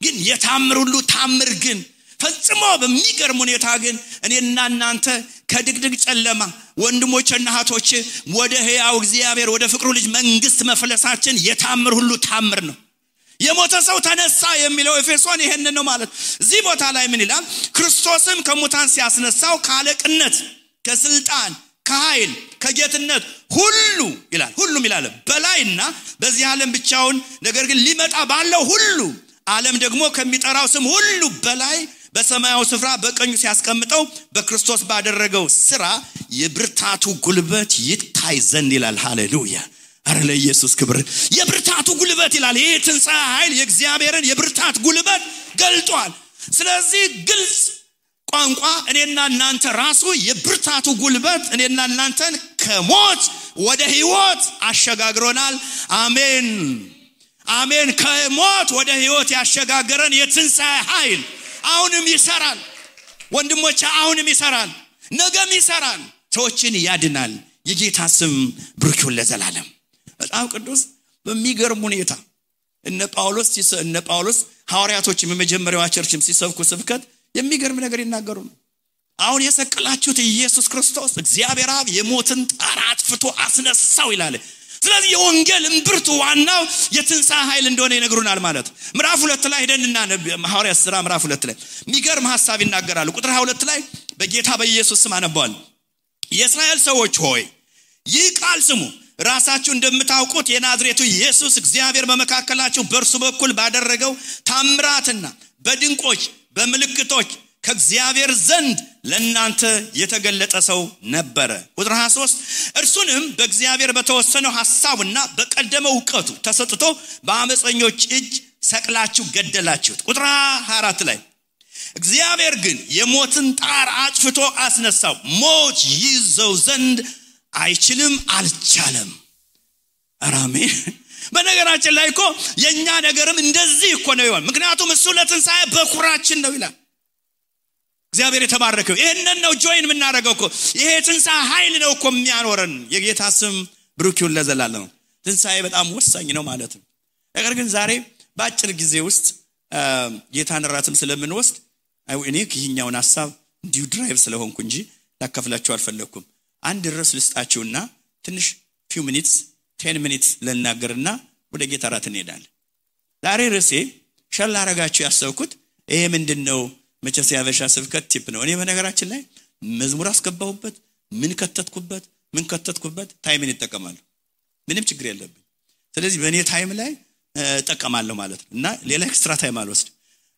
ግን የታምር ሁሉ ታምር ግን ፈጽሞ በሚገርም ሁኔታ ግን እኔና እናንተ ከድግድግ ጨለማ ወንድሞችና እህቶች ወደ ሕያው እግዚአብሔር ወደ ፍቅሩ ልጅ መንግስት መፍለሳችን የታምር ሁሉ ታምር ነው የሞተ ሰው ተነሳ የሚለው ኤፌሶን ይሄንን ነው ማለት። እዚህ ቦታ ላይ ምን ይላል? ክርስቶስም ከሙታን ሲያስነሳው ካለቅነት ከስልጣን ከኃይል ከጌትነት ሁሉ ይላል ሁሉም ይላል በላይና በዚህ ዓለም ብቻውን ነገር ግን ሊመጣ ባለው ሁሉ ዓለም ደግሞ ከሚጠራው ስም ሁሉ በላይ በሰማያዊ ስፍራ በቀኙ ሲያስቀምጠው በክርስቶስ ባደረገው ሥራ የብርታቱ ጉልበት ይታይ ዘንድ ይላል። ሃሌሉያ! አረ ለኢየሱስ ክብር። የብርታቱ ጉልበት ይላል። ይሄ ትንሣኤ ኃይል የእግዚአብሔርን የብርታት ጉልበት ገልጧል። ስለዚህ ግልጽ ቋንቋ እኔና እናንተ ራሱ የብርታቱ ጉልበት እኔና እናንተን ከሞት ወደ ሕይወት አሸጋግሮናል። አሜን አሜን። ከሞት ወደ ሕይወት ያሸጋገረን የትንሣኤ ኃይል አሁንም ይሰራል ወንድሞቼ፣ አሁንም ይሰራል፣ ነገም ይሰራል፣ ሰዎችን ያድናል። የጌታ ስም ብሩክ ይሁን ለዘላለም። በጣም ቅዱስ በሚገርም ሁኔታ እነ ጳውሎስ ሐዋርያቶችም የመጀመሪያው ቸርችም ሲሰብኩ ስብከት የሚገርም ነገር ይናገሩ ነው። አሁን የሰቀላችሁት ኢየሱስ ክርስቶስ እግዚአብሔር አብ የሞትን ጣር አጥፍቶ አስነሳው ይላል። ስለዚህ የወንጌል እምብርቱ ዋናው የትንሣኤ ኃይል እንደሆነ ይነግሩናል ማለት። ምዕራፍ 2 ላይ ሄደንና ሐዋርያት ሥራ ምዕራፍ 2 ላይ የሚገርም ሐሳብ ይናገራሉ። ቁጥር 22 ላይ በጌታ በኢየሱስ ስም አነባዋል። የእስራኤል ሰዎች ሆይ ይህ ቃል ስሙ፣ ራሳችሁ እንደምታውቁት የናዝሬቱ ኢየሱስ እግዚአብሔር በመካከላችሁ በእርሱ በኩል ባደረገው ታምራትና በድንቆች በምልክቶች ከእግዚአብሔር ዘንድ ለእናንተ የተገለጠ ሰው ነበረ። ቁጥር 23 እርሱንም በእግዚአብሔር በተወሰነው ሐሳቡና በቀደመው ዕውቀቱ ተሰጥቶ በአመፀኞች እጅ ሰቅላችሁ ገደላችሁት። ቁጥር 24 ላይ እግዚአብሔር ግን የሞትን ጣር አጥፍቶ አስነሳው፣ ሞት ይዘው ዘንድ አይችልም አልቻለም። አሜን። በነገራችን ላይ እኮ የኛ ነገርም እንደዚህ እኮ ነው ይሆን። ምክንያቱም እሱ ለትንሣኤ በኩራችን ነው ይላል። እግዚአብሔር የተባረከው ይሄንን ነው ጆይን የምናደርገው እኮ። ይሄ ትንሣኤ ኃይል ነው እኮ የሚያኖረን። የጌታ ስም ብሩክ ይሁን ለዘላለም። ትንሣኤ በጣም ወሳኝ ነው ማለት ነው። ነገር ግን ዛሬ በአጭር ጊዜ ውስጥ ጌታን ራትም ስለምንወስድ እኔ ይህኛውን ሐሳብ እንዲሁ ድራይቭ ስለሆንኩ እንጂ ላካፍላችሁ አልፈለኩም። አንድ ርዕስ ልስጣችሁና ትንሽ few minutes 10 minutes ለናገርና ወደ ጌታ ራት እንሄዳለን። ዛሬ ርዕሴ ሸል አረጋችሁ ያሰብኩት ይሄ ምንድነው? መቼስ ያበሻ ስብከት ቲፕ ነው። እኔ በነገራችን ላይ መዝሙር አስገባሁበት ምን ከተትኩበት ታይምን ይጠቀማሉ። ምንም ችግር የለብኝ። ስለዚህ በእኔ ታይም ላይ እጠቀማለሁ ማለት ነው እና ሌላ ኤክስትራ ታይም አልወስድ።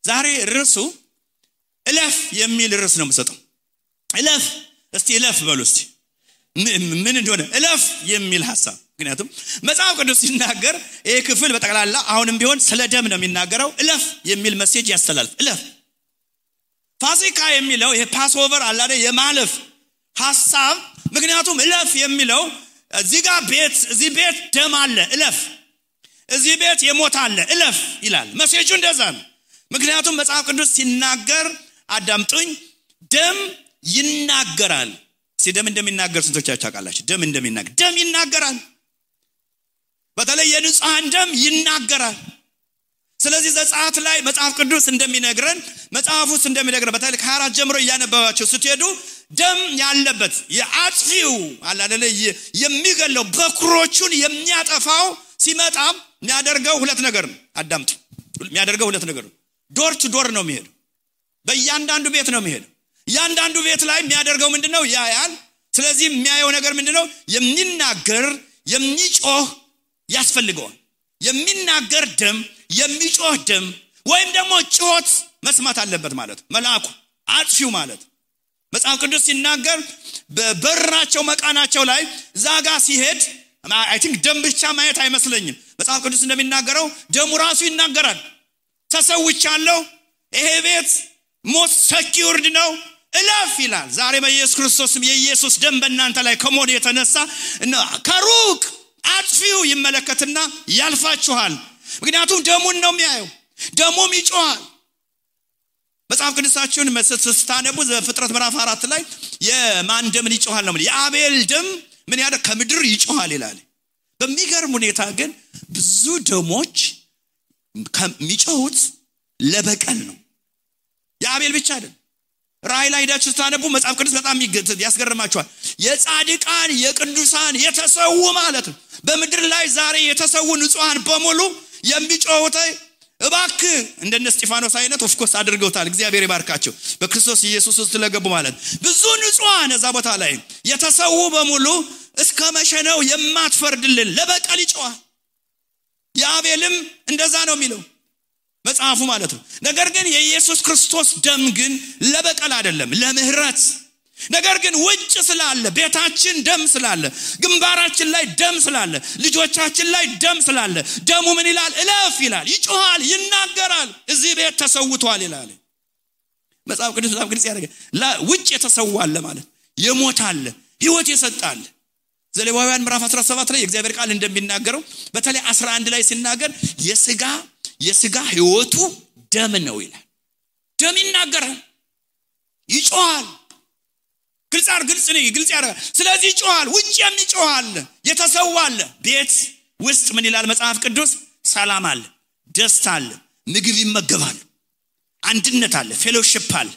ዛሬ ርዕሱ እለፍ የሚል ርዕስ ነው የምሰጠው። እለፍ እስቲ እለፍ በሉ እስቲ ምን እንደሆነ እለፍ የሚል ሐሳብ። ምክንያቱም መጽሐፍ ቅዱስ ሲናገር ይሄ ክፍል በጠቅላላ አሁንም ቢሆን ስለ ደም ነው የሚናገረው። እለፍ የሚል ሜሴጅ ያስተላልፍ። እለፍ ፋሲካ የሚለው ይሄ ፓስኦቨር አለ አይደል የማለፍ ሐሳብ። ምክንያቱም እለፍ የሚለው እዚህ ቤት ደም አለ እለፍ፣ እዚህ ቤት የሞት አለ እለፍ ይላል። ሜሴጁ እንደዛ ነው። ምክንያቱም መጽሐፍ ቅዱስ ሲናገር አዳምጡኝ፣ ደም ይናገራል። ደም እንደሚናገር ስንቶቻችሁ ታውቃላችሁ? ደም ይናገራል። በተለይ የንጹሃን ደም ይናገራል። ስለዚህ ዘጸአት ላይ መጽሐፍ ቅዱስ እንደሚነግረን በተለይ ከ4 ጀምሮ እያነበባችሁ ስትሄዱ ደም ያለበት የአጥፊው አለ አይደል የሚገለው በኩሮቹን የሚያጠፋው ሲመጣ የሚያደርገው ሁለት ነገር ነው። አዳምጡ፣ የሚያደርገው ሁለት ነገር ነው። ዶር ቱ ዶር ነው የሚሄደው። በእያንዳንዱ ቤት ነው የሚሄደው። ያንዳንዱ ቤት ላይ የሚያደርገው ምንድነው? ያያል። ስለዚህ የሚያየው ነገር ምንድነው? የሚናገር የሚጮህ ያስፈልገዋል። የሚናገር ደም፣ የሚጮህ ደም ወይም ደግሞ ጮት መስማት አለበት ማለት መልአኩ አጥፊው ማለት። መጽሐፍ ቅዱስ ሲናገር በበራቸው መቃናቸው ላይ ዛጋ ሲሄድ አይ ቲንክ ደም ብቻ ማየት አይመስለኝም። መጽሐፍ ቅዱስ እንደሚናገረው ደሙ ራሱ ይናገራል። ተሰውቻለሁ፣ ይሄ ቤት ሞት ሰኪውርድ ነው እለፍ ይላል። ዛሬ በኢየሱስ ክርስቶስም የኢየሱስ ደም በእናንተ ላይ ከሞት የተነሳ ከሩቅ አጥፊው ይመለከትና ያልፋችኋል። ምክንያቱም ደሙን ነው የሚያየው፣ ደሙም ይጮሃል። መጽሐፍ ቅዱሳችሁን ስታነቡ ዘፍጥረት ምዕራፍ 4 ላይ የማን ደም ይጮሃል ነው? የአቤል ደም ምን ያደ ከምድር ይጮሃል ይላል። በሚገርም ሁኔታ ግን ብዙ ደሞች ከሚጮሁት ለበቀል ነው። የአቤል ብቻ አይደለም። ራእይ ላይ ሄዳችሁ ስታነቡ መጽሐፍ ቅዱስ በጣም ያስገርማችኋል። የጻድቃን የቅዱሳን የተሰው ማለት ነው። በምድር ላይ ዛሬ የተሰው ንጹሃን በሙሉ የሚጮሁት እባክህ እንደነ እስጢፋኖስ አይነት ኦፍኮርስ አድርገውታል እግዚአብሔር ይባርካቸው በክርስቶስ ኢየሱስ ውስጥ ለገቡ ማለት ብዙ ንጹሃን እዛ ቦታ ላይ የተሰው በሙሉ እስከ መቼ ነው የማትፈርድልን ለበቀል ይጮሃል ያቤልም እንደዛ ነው የሚለው መጽሐፉ ማለት ነው ነገር ግን የኢየሱስ ክርስቶስ ደም ግን ለበቀል አይደለም ለምህረት ነገር ግን ውጭ ስላለ ቤታችን ደም ስላለ ግንባራችን ላይ ደም ስላለ ልጆቻችን ላይ ደም ስላለ ደሙ ምን ይላል እለፍ ይላል ይጮሃል ይናገራል እዚህ ቤት ተሰውቷል ይላል መጽሐፍ ቅዱስ በጣም ግልጽ ያደርጋል ውጭ የተሰዋለ ማለት የሞታለ ህይወት የሰጣለ ዘሌዋውያን ምዕራፍ 17 ላይ የእግዚአብሔር ቃል እንደሚናገረው በተለይ 11 ላይ ሲናገር የሥጋ ህይወቱ ደም ነው ይላል ደም ይናገራል ይጮሃል ግልጽ ያደርጋል ስለዚህ ይጮሃል ውጭ የሚጮሃል የተሰዋለ ቤት ውስጥ ምን ይላል መጽሐፍ ቅዱስ ሰላም አለ ደስታ አለ ምግብ ይመገባሉ አንድነት አለ ፌሎሺፕ አለ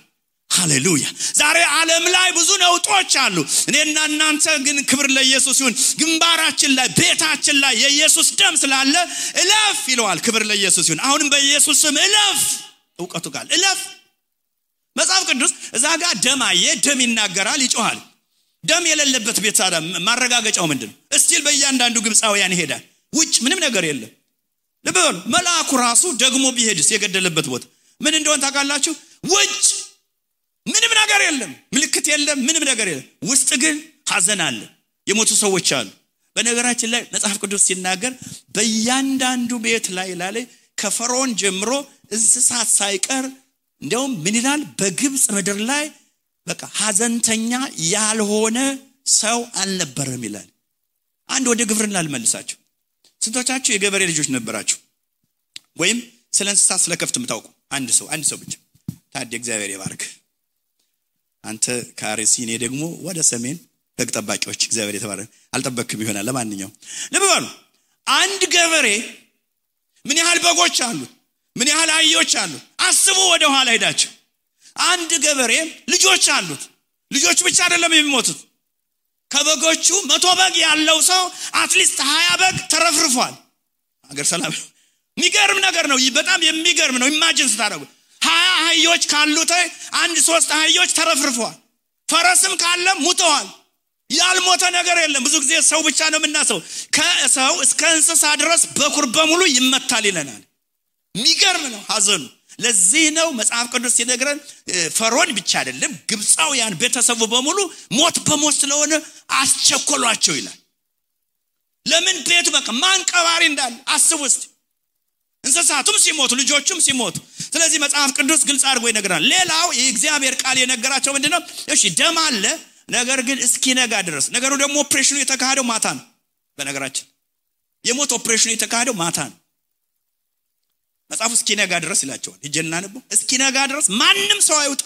ሃሌሉያ ዛሬ ዓለም ላይ ብዙ ነውጦች አሉ እኔና እናንተ ግን ክብር ለኢየሱስ ይሁን ግንባራችን ላይ ቤታችን ላይ የኢየሱስ ደም ስላለ እለፍ ይለዋል ክብር ለኢየሱስ ይሁን አሁንም በኢየሱስ ስም እለፍ ዕውቀቱ ጋር እለፍ መጽሐፍ ቅዱስ እዛ ጋር ደም ይናገራል ይጮሃል ደም የሌለበት ቤት ታዲያ ማረጋገጫው ምንድነው እስቲል በእያንዳንዱ ግብፃውያን ይሄዳል ውጭ ምንም ነገር የለም ለበሉ መልአኩ ራሱ ደግሞ ቢሄድስ የገደለበት ቦታ ምን እንደሆነ ታውቃላችሁ ውጭ ምንም ነገር የለም ምልክት የለም ምንም ነገር የለም ውስጥ ግን ሐዘን አለ የሞቱ ሰዎች አሉ በነገራችን ላይ መጽሐፍ ቅዱስ ሲናገር በእያንዳንዱ ቤት ላይ ከፈርዖን ጀምሮ እንስሳት ሳይቀር እንደውም ምን ይላል በግብጽ ምድር ላይ በቃ ሐዘንተኛ ያልሆነ ሰው አልነበረም ይላል አንድ ወደ ግብርና ልመልሳችሁ ስንቶቻችሁ የገበሬ ልጆች ነበራችሁ ወይም ስለ እንስሳት ስለ ከፍት የምታውቁ አንድ ሰው ብቻ ታዲያ እግዚአብሔር ይባርክ አንተ ካርሲ እኔ ደግሞ ወደ ሰሜን በግ ጠባቂዎች እግዚአብሔር የተባረከ አልጠበቅም ይሆናል ለማንኛውም ለበሉ አንድ ገበሬ ምን ያህል በጎች አሉት ምን ያህል አህዮች አሉት አስቡ ወደ ኋላ ሄዳችሁ አንድ ገበሬ ልጆች አሉት ልጆች ብቻ አይደለም የሚሞቱት ከበጎቹ 100 በግ ያለው ሰው አትሊስት 20 በግ ተረፍርፏል አገር ሰላም የሚገርም ነገር ነው በጣም የሚገርም ነው ኢማጂን ስታደርጉ 20 አህዮች ካሉት አንድ 3 አህዮች ተረፍርፏል ፈረስም ካለ ሙተዋል ያልሞተ ነገር የለም ብዙ ጊዜ ሰው ብቻ ነው የምናሰው ከሰው እስከ እንስሳ ድረስ በኩር በሙሉ ይመታል ይለናል የሚገርም ነው ሐዘኑ ለዚህ ነው መጽሐፍ ቅዱስ ሲነግረን ፈርዖን ብቻ አይደለም ግብፃውያን ቤተሰቡ በሙሉ ሞት በሞት ስለሆነ አስቸኮሏቸው ይላል ለምን ቤቱ በቃ ማንቀባሪ እንዳለ አስቡት እንስሳቱም ሲሞቱ ልጆቹም ሲሞቱ ስለዚህ መጽሐፍ ቅዱስ ግልጽ አድርጎ ይነግራል ሌላው የእግዚአብሔር ቃል የነገራቸው ምንድነው እሺ ደም አለ ነገር ግን እስኪነጋ ድረስ ነገሩ ደግሞ ኦፕሬሽኑ የተካሄደው ማታ ነው በነገራችን የሞት ኦፕሬሽኑ የተካሄደው ማታ ነው መጽሐፉ እስኪነጋ ድረስ ይላቸዋል ይጀና ነው እስኪነጋ ድረስ ማንንም ሰው አይውጣ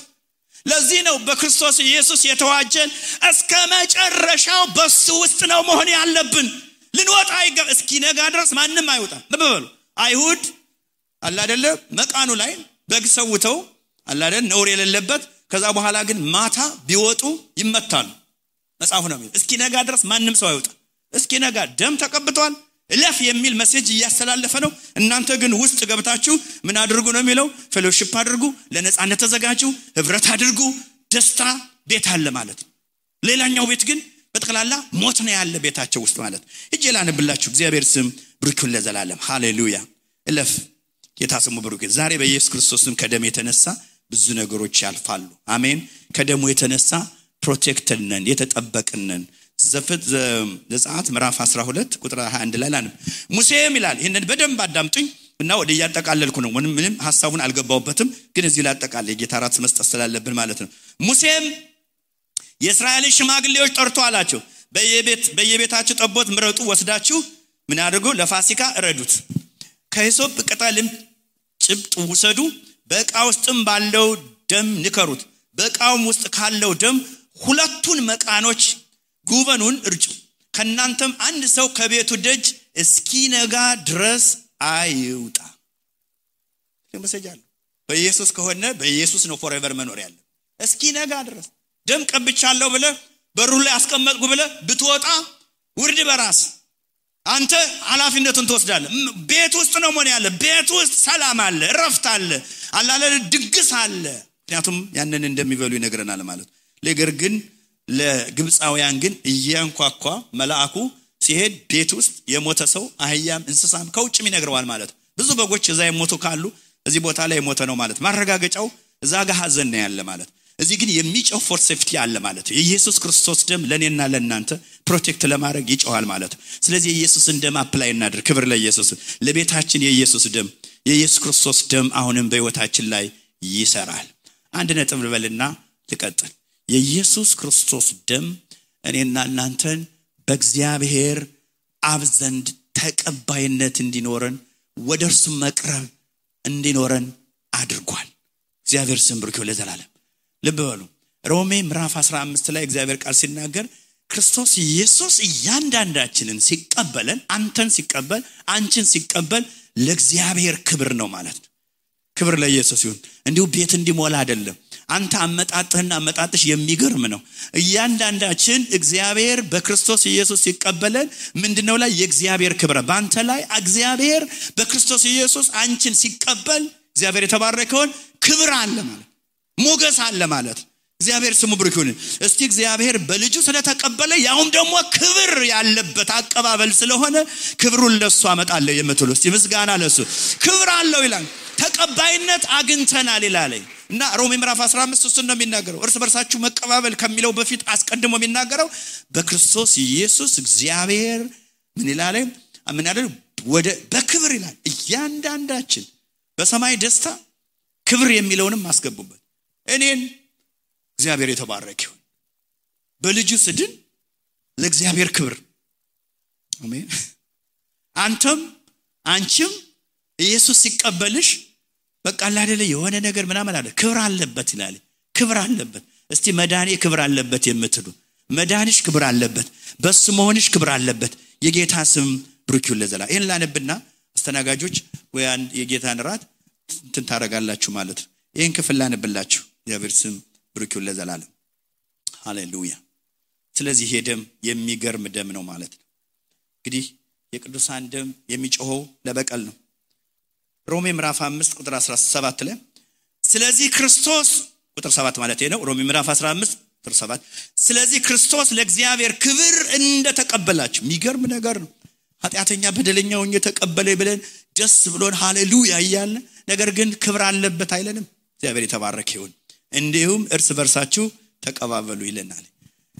ለዚህ ነው በክርስቶስ ኢየሱስ የተዋጀን እስከ መጨረሻው በሱ ውስጥ ነው መሆን ያለብን ልንወጣ እስኪነጋ ድረስ ማንንም አይውጣ በበሉ አይሁድ አላ አይደለ መቃኑ ላይ በግ ሰውተው አላ አይደል ነውር የሌለበት ከዛ በኋላ ግን ማታ ቢወጡ ይመታሉ መጽሐፉ ነው እስኪነጋ ድረስ ማንንም ሰው አይውጣ እስኪነጋ ደም ተቀብቷል እለፍ የሚል ሜሴጅ እያስተላለፈ ነው እናንተ ግን ውስጥ ገብታችሁ ምን አድርጉ ነው የሚለው ፌሎሺፕ አድርጉ ለነጻነት ተዘጋጁ ህብረት አድርጉ ደስታ ቤት አለ ማለት ሌላኛው ቤት ግን በተከላላ ሞት ነው ያለ ቤታቸው ውስጥ ማለት እጄላንብላችሁ እግዚአብሔር ስም ብሩክ ለዘላለም ሃሌሉያ እለፍ የታስሙ ብሩክ ዛሬ በኢየሱስ ክርስቶስ ስም ከደም የተነሳ ብዙ ነገሮች ያልፋሉ አሜን ከደሙ የተነሳ ፕሮቴክትድ ነን የተጠበቅን ነን ዘጸአት ምዕራፍ 12 ቁጥር 21 ላይ ላንብ ሙሴም ይላል ይሄንን በደንብ አዳምጡኝ እና ወደ ያጠቃለልኩ ነው ምንም ሐሳቡን አልገባውበትም ግን እዚህ ላይ አጠቃላይ ጌታ ራስ መስጠት ስላለብን ማለት ነው ሙሴም የእስራኤል ሽማግሌዎች ጠርቶ አላቸው በየቤታችሁ ጠቦት ምረጡ ወስዳችሁ ምን አድርጉ ለፋሲካ እረዱት ከሂሶጵ ቅጠልም ጭብጥ ውሰዱ በዕቃ ውስጥም ባለው ደም ንከሩት በዕቃውም ውስጥ ካለው ደም ሁለቱን መቃኖች ጉበኑን እርጩ ከናንተም አንድ ሰው ከቤቱ ደጅ እስኪነጋ ድረስ አይውጣ ለምሰጃል በኢየሱስ ከሆነ በኢየሱስ ነው ፎrever መኖር ያለ እስኪነጋ ድረስ ደም ቀብቻለሁ ብለ በሩ ላይ አስቀመጥኩ ብለ ብትወጣ ውርድ በራስ አንተ ኃላፊነቱን ትወስዳለህ ቤት ውስጥ ነው ምን ያለ ቤት ውስጥ ሰላም አለ እረፍት አለ አላለ ድግስ አለ ምክንያቱም ያንን እንደሚበሉ ይነግረናል ማለት ነገር ግን ለግብፃውያን ግን እያንኳኳ መልአኩ ሲሄድ ቤት ውስጥ የሞተ ሰው አህያም እንስሳም ከውጭም ይነግረዋል ማለት ብዙ በጎች እዛ የሞቱ ካሉ እዚህ ቦታ ላይ የሞተ ነው ማለት ማረጋገጫው እዛ ጋር ሐዘን ነው ያለ ማለት እዚህ ግን የሚጮህ ፎር ሴፍቲ አለ ማለት የኢየሱስ ክርስቶስ ደም ለኔና ለናንተ ፕሮቴክት ለማድረግ ይጮሃል ማለት ስለዚህ ኢየሱስን ደም አፕላይ እናድርግ ክብር ለኢየሱስ ለቤታችን የኢየሱስ ክርስቶስ ደም አሁንም በህይወታችን ላይ ይሰራል አንድ ነጥብ ልበልና ልቀጥል የኢየሱስ ክርስቶስ ደም እኔና እናንተን በእግዚአብሔር አብ ዘንድ ተቀባይነት እንዲኖረን ወደርሱ መቅረብ እንዲኖረን አድርጓል እግዚአብሔር ስም ብሩክ ለዘላለም ልብ በሉ ሮሜ ምዕራፍ 15 ላይ እግዚአብሔር ቃል ሲናገር ክርስቶስ ኢየሱስ እያንዳንዳችንን ሲቀበለን አንተን ሲቀበል አንቺን ሲቀበል ለእግዚአብሔር ክብር ነው ማለት ነው ክብር ለኢየሱስ ይሁን እንዲሁ ቤት እንዲሞላ አይደለም አንተ አመጣጥህና አመጣጥሽ የሚገርም ነው እያንዳንዳችን እግዚአብሔር በክርስቶስ ኢየሱስ ሲቀበለን ምንድነው ላይ የእግዚአብሔር ክብር ባንተ ላይ እግዚአብሔር በክርስቶስ ኢየሱስ አንቺን ሲቀበል እግዚአብሔር የተባረከውን ክብር አለ ማለት ሞገስ አለ ማለት እግዚአብሔር ስሙ ብሩክ ይሁን እስቲ እግዚአብሔር በልጁ ስለተቀበለ ያውም ደግሞ ክብር ያለበት አቀባበል ስለሆነ ክብሩን ለሱ አመጣለሁ የምትሉ እስቲ ምስጋና ለሱ ክብር አለው ይላል ተቀባይነት አግኝተናል ይላል እና ሮሜ ምዕራፍ 15 እሱ ነው የሚናገረው እርስ በርሳችሁ መቀባበል ከሚለው በፊት አስቀድሞ የሚናገረው በክርስቶስ ኢየሱስ እግዚአብሔር ምን ይላል ምን ያለው ወደ በክብር ይላል እያንዳንዳችን በሰማይ ደስታ ክብር የሚለውንም አስገቡበት እኔን እግዚአብሔር የተባረከ ይሁን በልጁ ስድን ለእግዚአብሔር ክብር አሜን አንተም አንቺም ኢየሱስ ሲቀበልሽ በቃ አይደለ የሆነ ነገር ምናምን አለ ክብር አለበት ይላል ክብር አለበት እስቲ መዳኔ ክብር አለበት የምትሉ መዳንሽ ክብር አለበት በሱ መሆንሽ ክብር አለበት የጌታ ስም ብሩክ ይሁን ለዘላለም ይሄን ላነብና አስተናጋጆች ወይ አንድ የጌታን ራት እንትን ታረጋላችሁ ማለት ነው ይሄን ክፍል ላነብላችሁ የእግዚአብሔር ስም ብሩክ ይሁን ለዘላለም ሃሌሉያ ስለዚህ ይሄ ደም የሚገርም ደም ነው ማለት ነው እንግዲህ የቅዱሳን ደም የሚጮኸው ለበቀል ነው ሮሜ ምዕራፍ 5 ቁጥር 17 ላይ ስለዚህ ክርስቶስ ቁጥር 7 ማለት ነው ሮሜ ምዕራፍ 15 ቁጥር 7 ስለዚህ ክርስቶስ ለእግዚአብሔር ክብር እንደተቀበላችሁ የሚገርም ነገር ነው ኃጢአተኛ በደለኛው እየተቀበለ ብለን ደስ ብሎን ሃሌሉያ ይያል ነገር ግን ክብር አለበት አይለንም እግዚአብሔር የተባረከ ይሁን እንዲሁም እርስ በርሳችሁ ተቀባበሉ ይለናል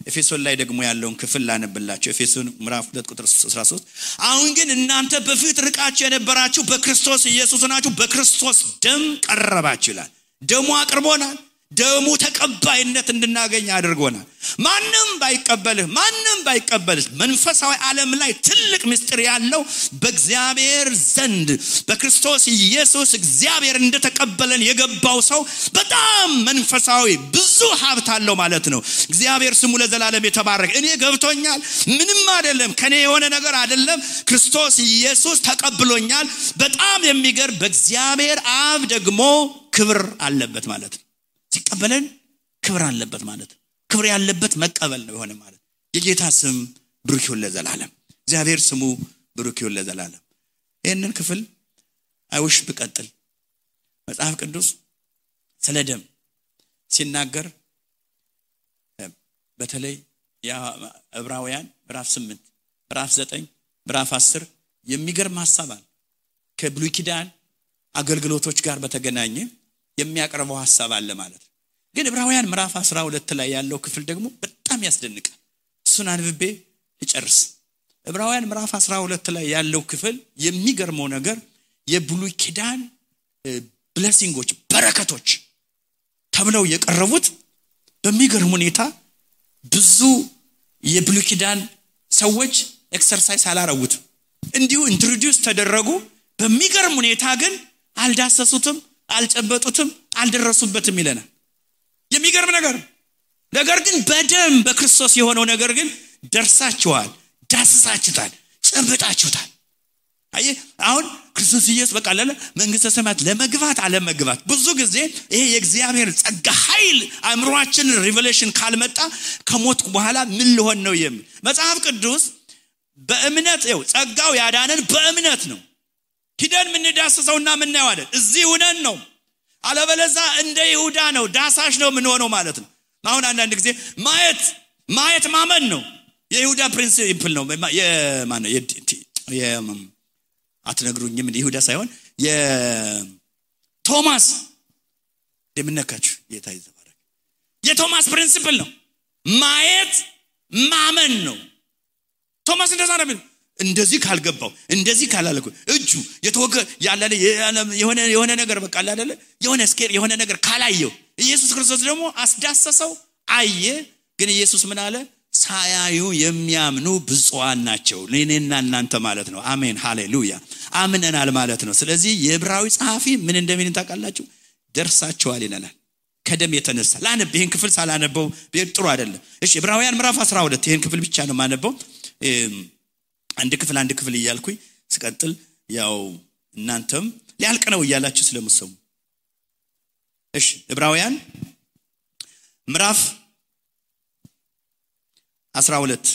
ኤፌሶን ላይ ደግሞ ያለውን ክፍል ላነብላችሁ ኤፌሶን ምዕራፍ 2 ቁጥር 13 አሁን ግን እናንተ በፊት ርቃችሁ የነበራችሁ በክርስቶስ ኢየሱስ ናችሁ በክርስቶስ ደም ቀረባችሁ ይላል ደሙ አቅርቦናል ደሙ ተቀባይነት እንድናገኝ አድርጎናል ማንንም ባይቀበልህ መንፈሳዊ ዓለም ላይ ትልቅ ምስጢር ያለው በእግዚአብሔር ዘንድ በክርስቶስ ኢየሱስ እግዚአብሔር እንደተቀበለን የገባው ሰው በጣም መንፈሳዊ ብዙ ሀብት አለው ማለት ነው እግዚአብሔር ስሙ ለዘላለም የተባረከ እኔ ገብቶኛል ምንም አይደለም ከኔ የሆነ ነገር አይደለም ክርስቶስ ኢየሱስ ተቀብሎኛል በጣም የሚገርም በእግዚአብሔር አብ ደግሞ ክብር አለበት ማለት ነው ሲቀበለን ክብር አለበት ማለት ክብር ያለበት መቀበል ነው የሆነ ማለት የጌታ ስም ብሩክ ይሁን ለዘላለም እግዚአብሔር ስሙ ብሩክ ይሁን ለዘላለም ይሄንን ክፍል አይውሽ በቀጥል መጽሐፍ ቅዱስ ስለ ደም ሲናገር በተለይ ዕብራውያን ምዕራፍ 8 ምዕራፍ 9 ምዕራፍ 10 የሚገርም ሐሳብ አለ ከብሉይ ኪዳን አገልግሎቶች ጋር በተገናኘ የሚያቀርበው ሐሳብ አለ ማለት ግን ዕብራውያን ምዕራፍ 12 ላይ ያለው ክፍል ደግሞ በጣም ያስደንቃል እሱን አንብቤ ልጨርስ ዕብራውያን ምዕራፍ 12 ላይ ያለው ክፍል የሚገርመው ነገር የብሉይ ኪዳን ብሌሲንጎች በረከቶች ተብለው የቀረቡት በሚገርም ሁኔታ ብዙ የብሉይ ኪዳን ሰዎች ኤክሰርሳይዝ አላረጉት እንዲሁ ኢንትሮዲዩስ ተደረጉ በሚገርም ሁኔታ ግን አልዳሰሱትም አልጨበጡትም አልደረሱበትም ይለናል የሚገርም ነገር ግን በደም በክርስቶስ የሆነው ነገር ግን ደርሳችኋል ዳስሳችሁታል ጨብጣችሁታል አይ አሁን ክርስቶስ ኢየሱስ በቃ መንግስተ ሰማያት ለመግባት አለመግባት ብዙ ጊዜ ይሄ የእግዚአብሔር ጸጋ ኃይል አእምሮአችን ሪቨሌሽን ካልመጣ ከሞት በኋላ ምን ሊሆን ነው የሚል መጽሐፍ ቅዱስ በእምነት ነው ጸጋው ያዳነን በእምነት ነው ሂደን ምን ዳሰሰውና ምን ነው አይደል እዚህ ሆነን ነው አለበለዛ እንደ ይሁዳ ነው ዳሳሽ ነው ምን ሆነው ማለት ነው አሁን አንዳንድ ጊዜ ማየት ማመን ነው የይሁዳ ፕሪንሲፕል ነው የማን ነው አትነግሩኝም እንደ ይሁዳ ሳይሆን የቶማስ ደምነካችሁ ጌታ ይዘባረክ የቶማስ ፕሪንሲፕል ነው ማየት ማመን ነው ቶማስ እንደዛ ነው እንደዚህ ካልገባው እንደዚህ ካላለኩ እጁ የተወገ ያላለ የሆነ ነገር በቃ አይደለ የሆነ ስኬር የሆነ ነገር ካላየው ኢየሱስ ክርስቶስ ደግሞ አስዳሰሰው አየ ግን ኢየሱስ ምን አለ ሳያዩ የሚያምኑ ብፁዓን ናቸው ለኔና እናንተ ማለት ነው አሜን ሃሌሉያ አምነናል ማለት ነው ስለዚህ የዕብራዊ ጸሐፊ ምን እንደሚል ታውቃላችሁ ደርሳቸዋል ይላል ከደም የተነሳ ላነብ ይሄን ክፍል ሳላነበው ጥሩ አይደለም እሺ ዕብራውያን ምዕራፍ 12 ይሄን ክፍል ብቻ ነው ማነበው አንድ ክፍል እያልኩኝ ስቀጥል ያው እናንተም ሊያልቅ ነው እያላችሁ ስለምሰሙ እሺ ዕብራውያን ምዕራፍ 12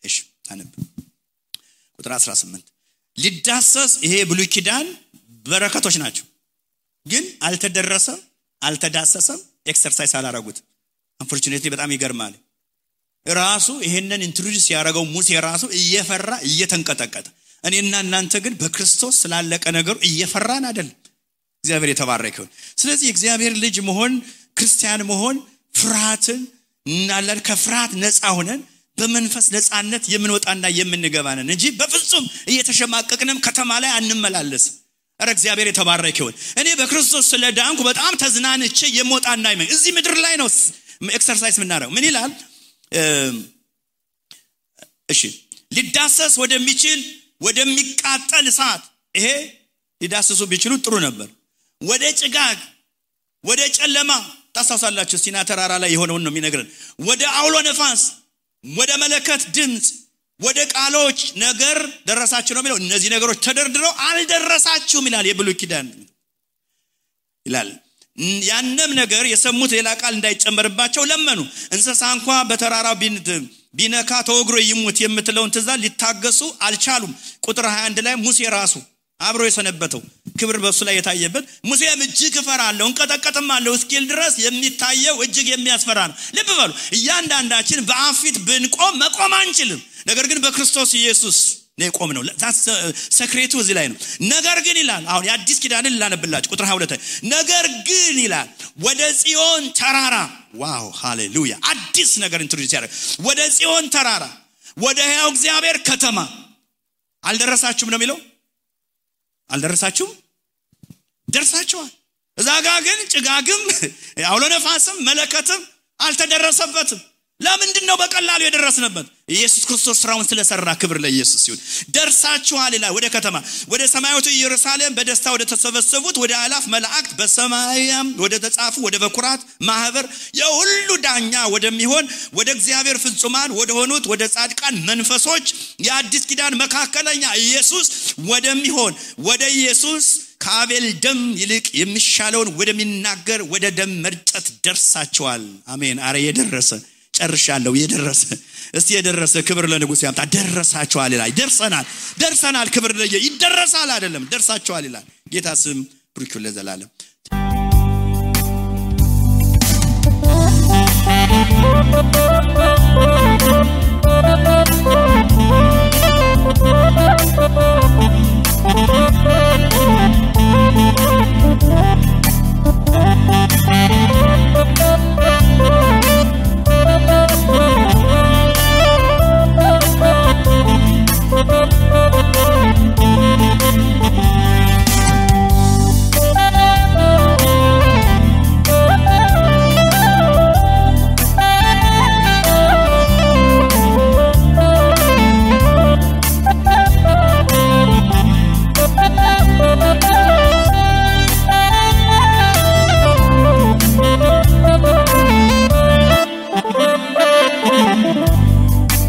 እሺ ታነብ ቁጥር 18 ሊዳሰስ ይሄ ብሉይ ኪዳን በረከቶች ናቸው ግን አልተዳሰሰም ኤክሰርሳይዝ አላረጉት አንፎርቹኔትሊ በጣም ይገርማል ራሱ ይሄንን ኢንትሮዲዩስ ያደረገው ሙሴ ራሱ እየፈራ እየተንቀጠቀጠ እኔና እናንተ ግን በክርስቶስ ስላለቀ ነገር እየፈራን አይደል እግዚአብሔር የተባረከው ስለዚህ እግዚአብሔር ልጅ መሆን ክርስቲያን መሆን ፍርሃትን እናላል ከፍርሃት ነፃ ሆነን በመንፈስ ነፃነት የምንወጣና የምንገባነን እንጂ በፍጹም እየተሸማቀቅንም ከተማ ላይ አንመላለስ አረ እግዚአብሔር የተባረከው እኔ በክርስቶስ ስለዳንኩ በጣም ተዝናንቼ የሞጣና አይመን እዚህ ምድር ላይ ነው ኤክሰርሳይዝ ምናረው ምን ይላል እሺ ሊዳሰስ ወደሚቃጠል እሳት ይሄ ሊዳሰሱ ቢችሉ ጥሩ ነበር ወደ ጭጋግ ወደ ጨለማ ታሳሳላችሁ ሲና ተራራ ላይ የሆነውን ነው የሚነግረን ወደ አውሎ ነፋስ ወደ መለከት ድምጽ ወደ ቃሎች ነገር ደረሳችሁ ነው የሚለው እነዚህ ነገሮች ተደርድረው አልደረሳችሁም ይላል የብሉይ ኪዳን ይላል ያንንም ነገር የሰሙት ሌላ ቃል እንዳይጨመርባቸው ለመኑ እንስሳ እንኳን በተራራው ቢነካ ተወግሮ ይሙት የምትለውን ትእዛዝ ሊታገሱ አልቻሉም ቁጥር 21 ላይ ሙሴ ራሱ አብሮ የሰነበተው ክብር በሱ ላይ የታየበት ሙሴም እጅግ ፈራለው እንቀጠቀጥማለው እስኪል ድረስ የሚታየው እጅግ የሚያስፈራ ነው ልብ በሉ እያንዳንዳችን በአፊት ብንቆም መቆም አንችልም ነገር ግን በክርስቶስ ኢየሱስ ነው ቆመነው ሰክሬቱ እዚህ ላይ ነው ነገር ግን ይላል አሁን የአዲስ ኪዳንን ላነብላችሁ ቁጥር 22 ነገር ግን ይላል ወደ ጽዮን ተራራ ዋው ሃሌሉያ አዲስ ነገር ኢንትሮዲዩስ ያደርግ ወደ ጽዮን ተራራ ወደ ሕያው እግዚአብሔር ከተማ አልደረሳችሁም ነው የሚለው አልደረሳችሁም ደርሳችኋል እዛጋ ግን ጭጋግም አውሎ ነፋስም መለከትም አልተደረሰበትም ለምንድነው በቀላሉ የደረስንበት ኢየሱስ ክርስቶስ ስራውን ስለሰራ ክብር ለኢየሱስ ይሁን ደርሳችኋል ይላል ወደ ከተማ ወደ ሰማያዊቱ ኢየሩሳሌም በደስታ ወደ ተሰበሰቡት ወደ አላፍ መላእክት በሰማያም ወደ ተጻፉ ወደ በኩራት ማህበር የሁሉ ዳኛ ወደሚሆን ወደ እግዚአብሔር ፍጹማን ወደ ሆኑት ወደ ጻድቃን መንፈሶች የአዲስ ኪዳን መካከለኛ ኢየሱስ ወደሚሆን ወደ ኢየሱስ ከአቤል ደም ይልቅ የሚሻለውን ወደሚናገር ወደ ደም መርጨት ደርሳችኋል አሜን አረ የደረሰ ጨርሻለሁ የደረሰ እስቲ የደረሰ ክብር ለንጉስ ያምጣ ደረሳችኋል ይላል ደርሰናል ክብር ለየ ይደረሳል አይደለም ደርሳችኋል ይላል ጌታ ስም ብሩክ ለዘላለም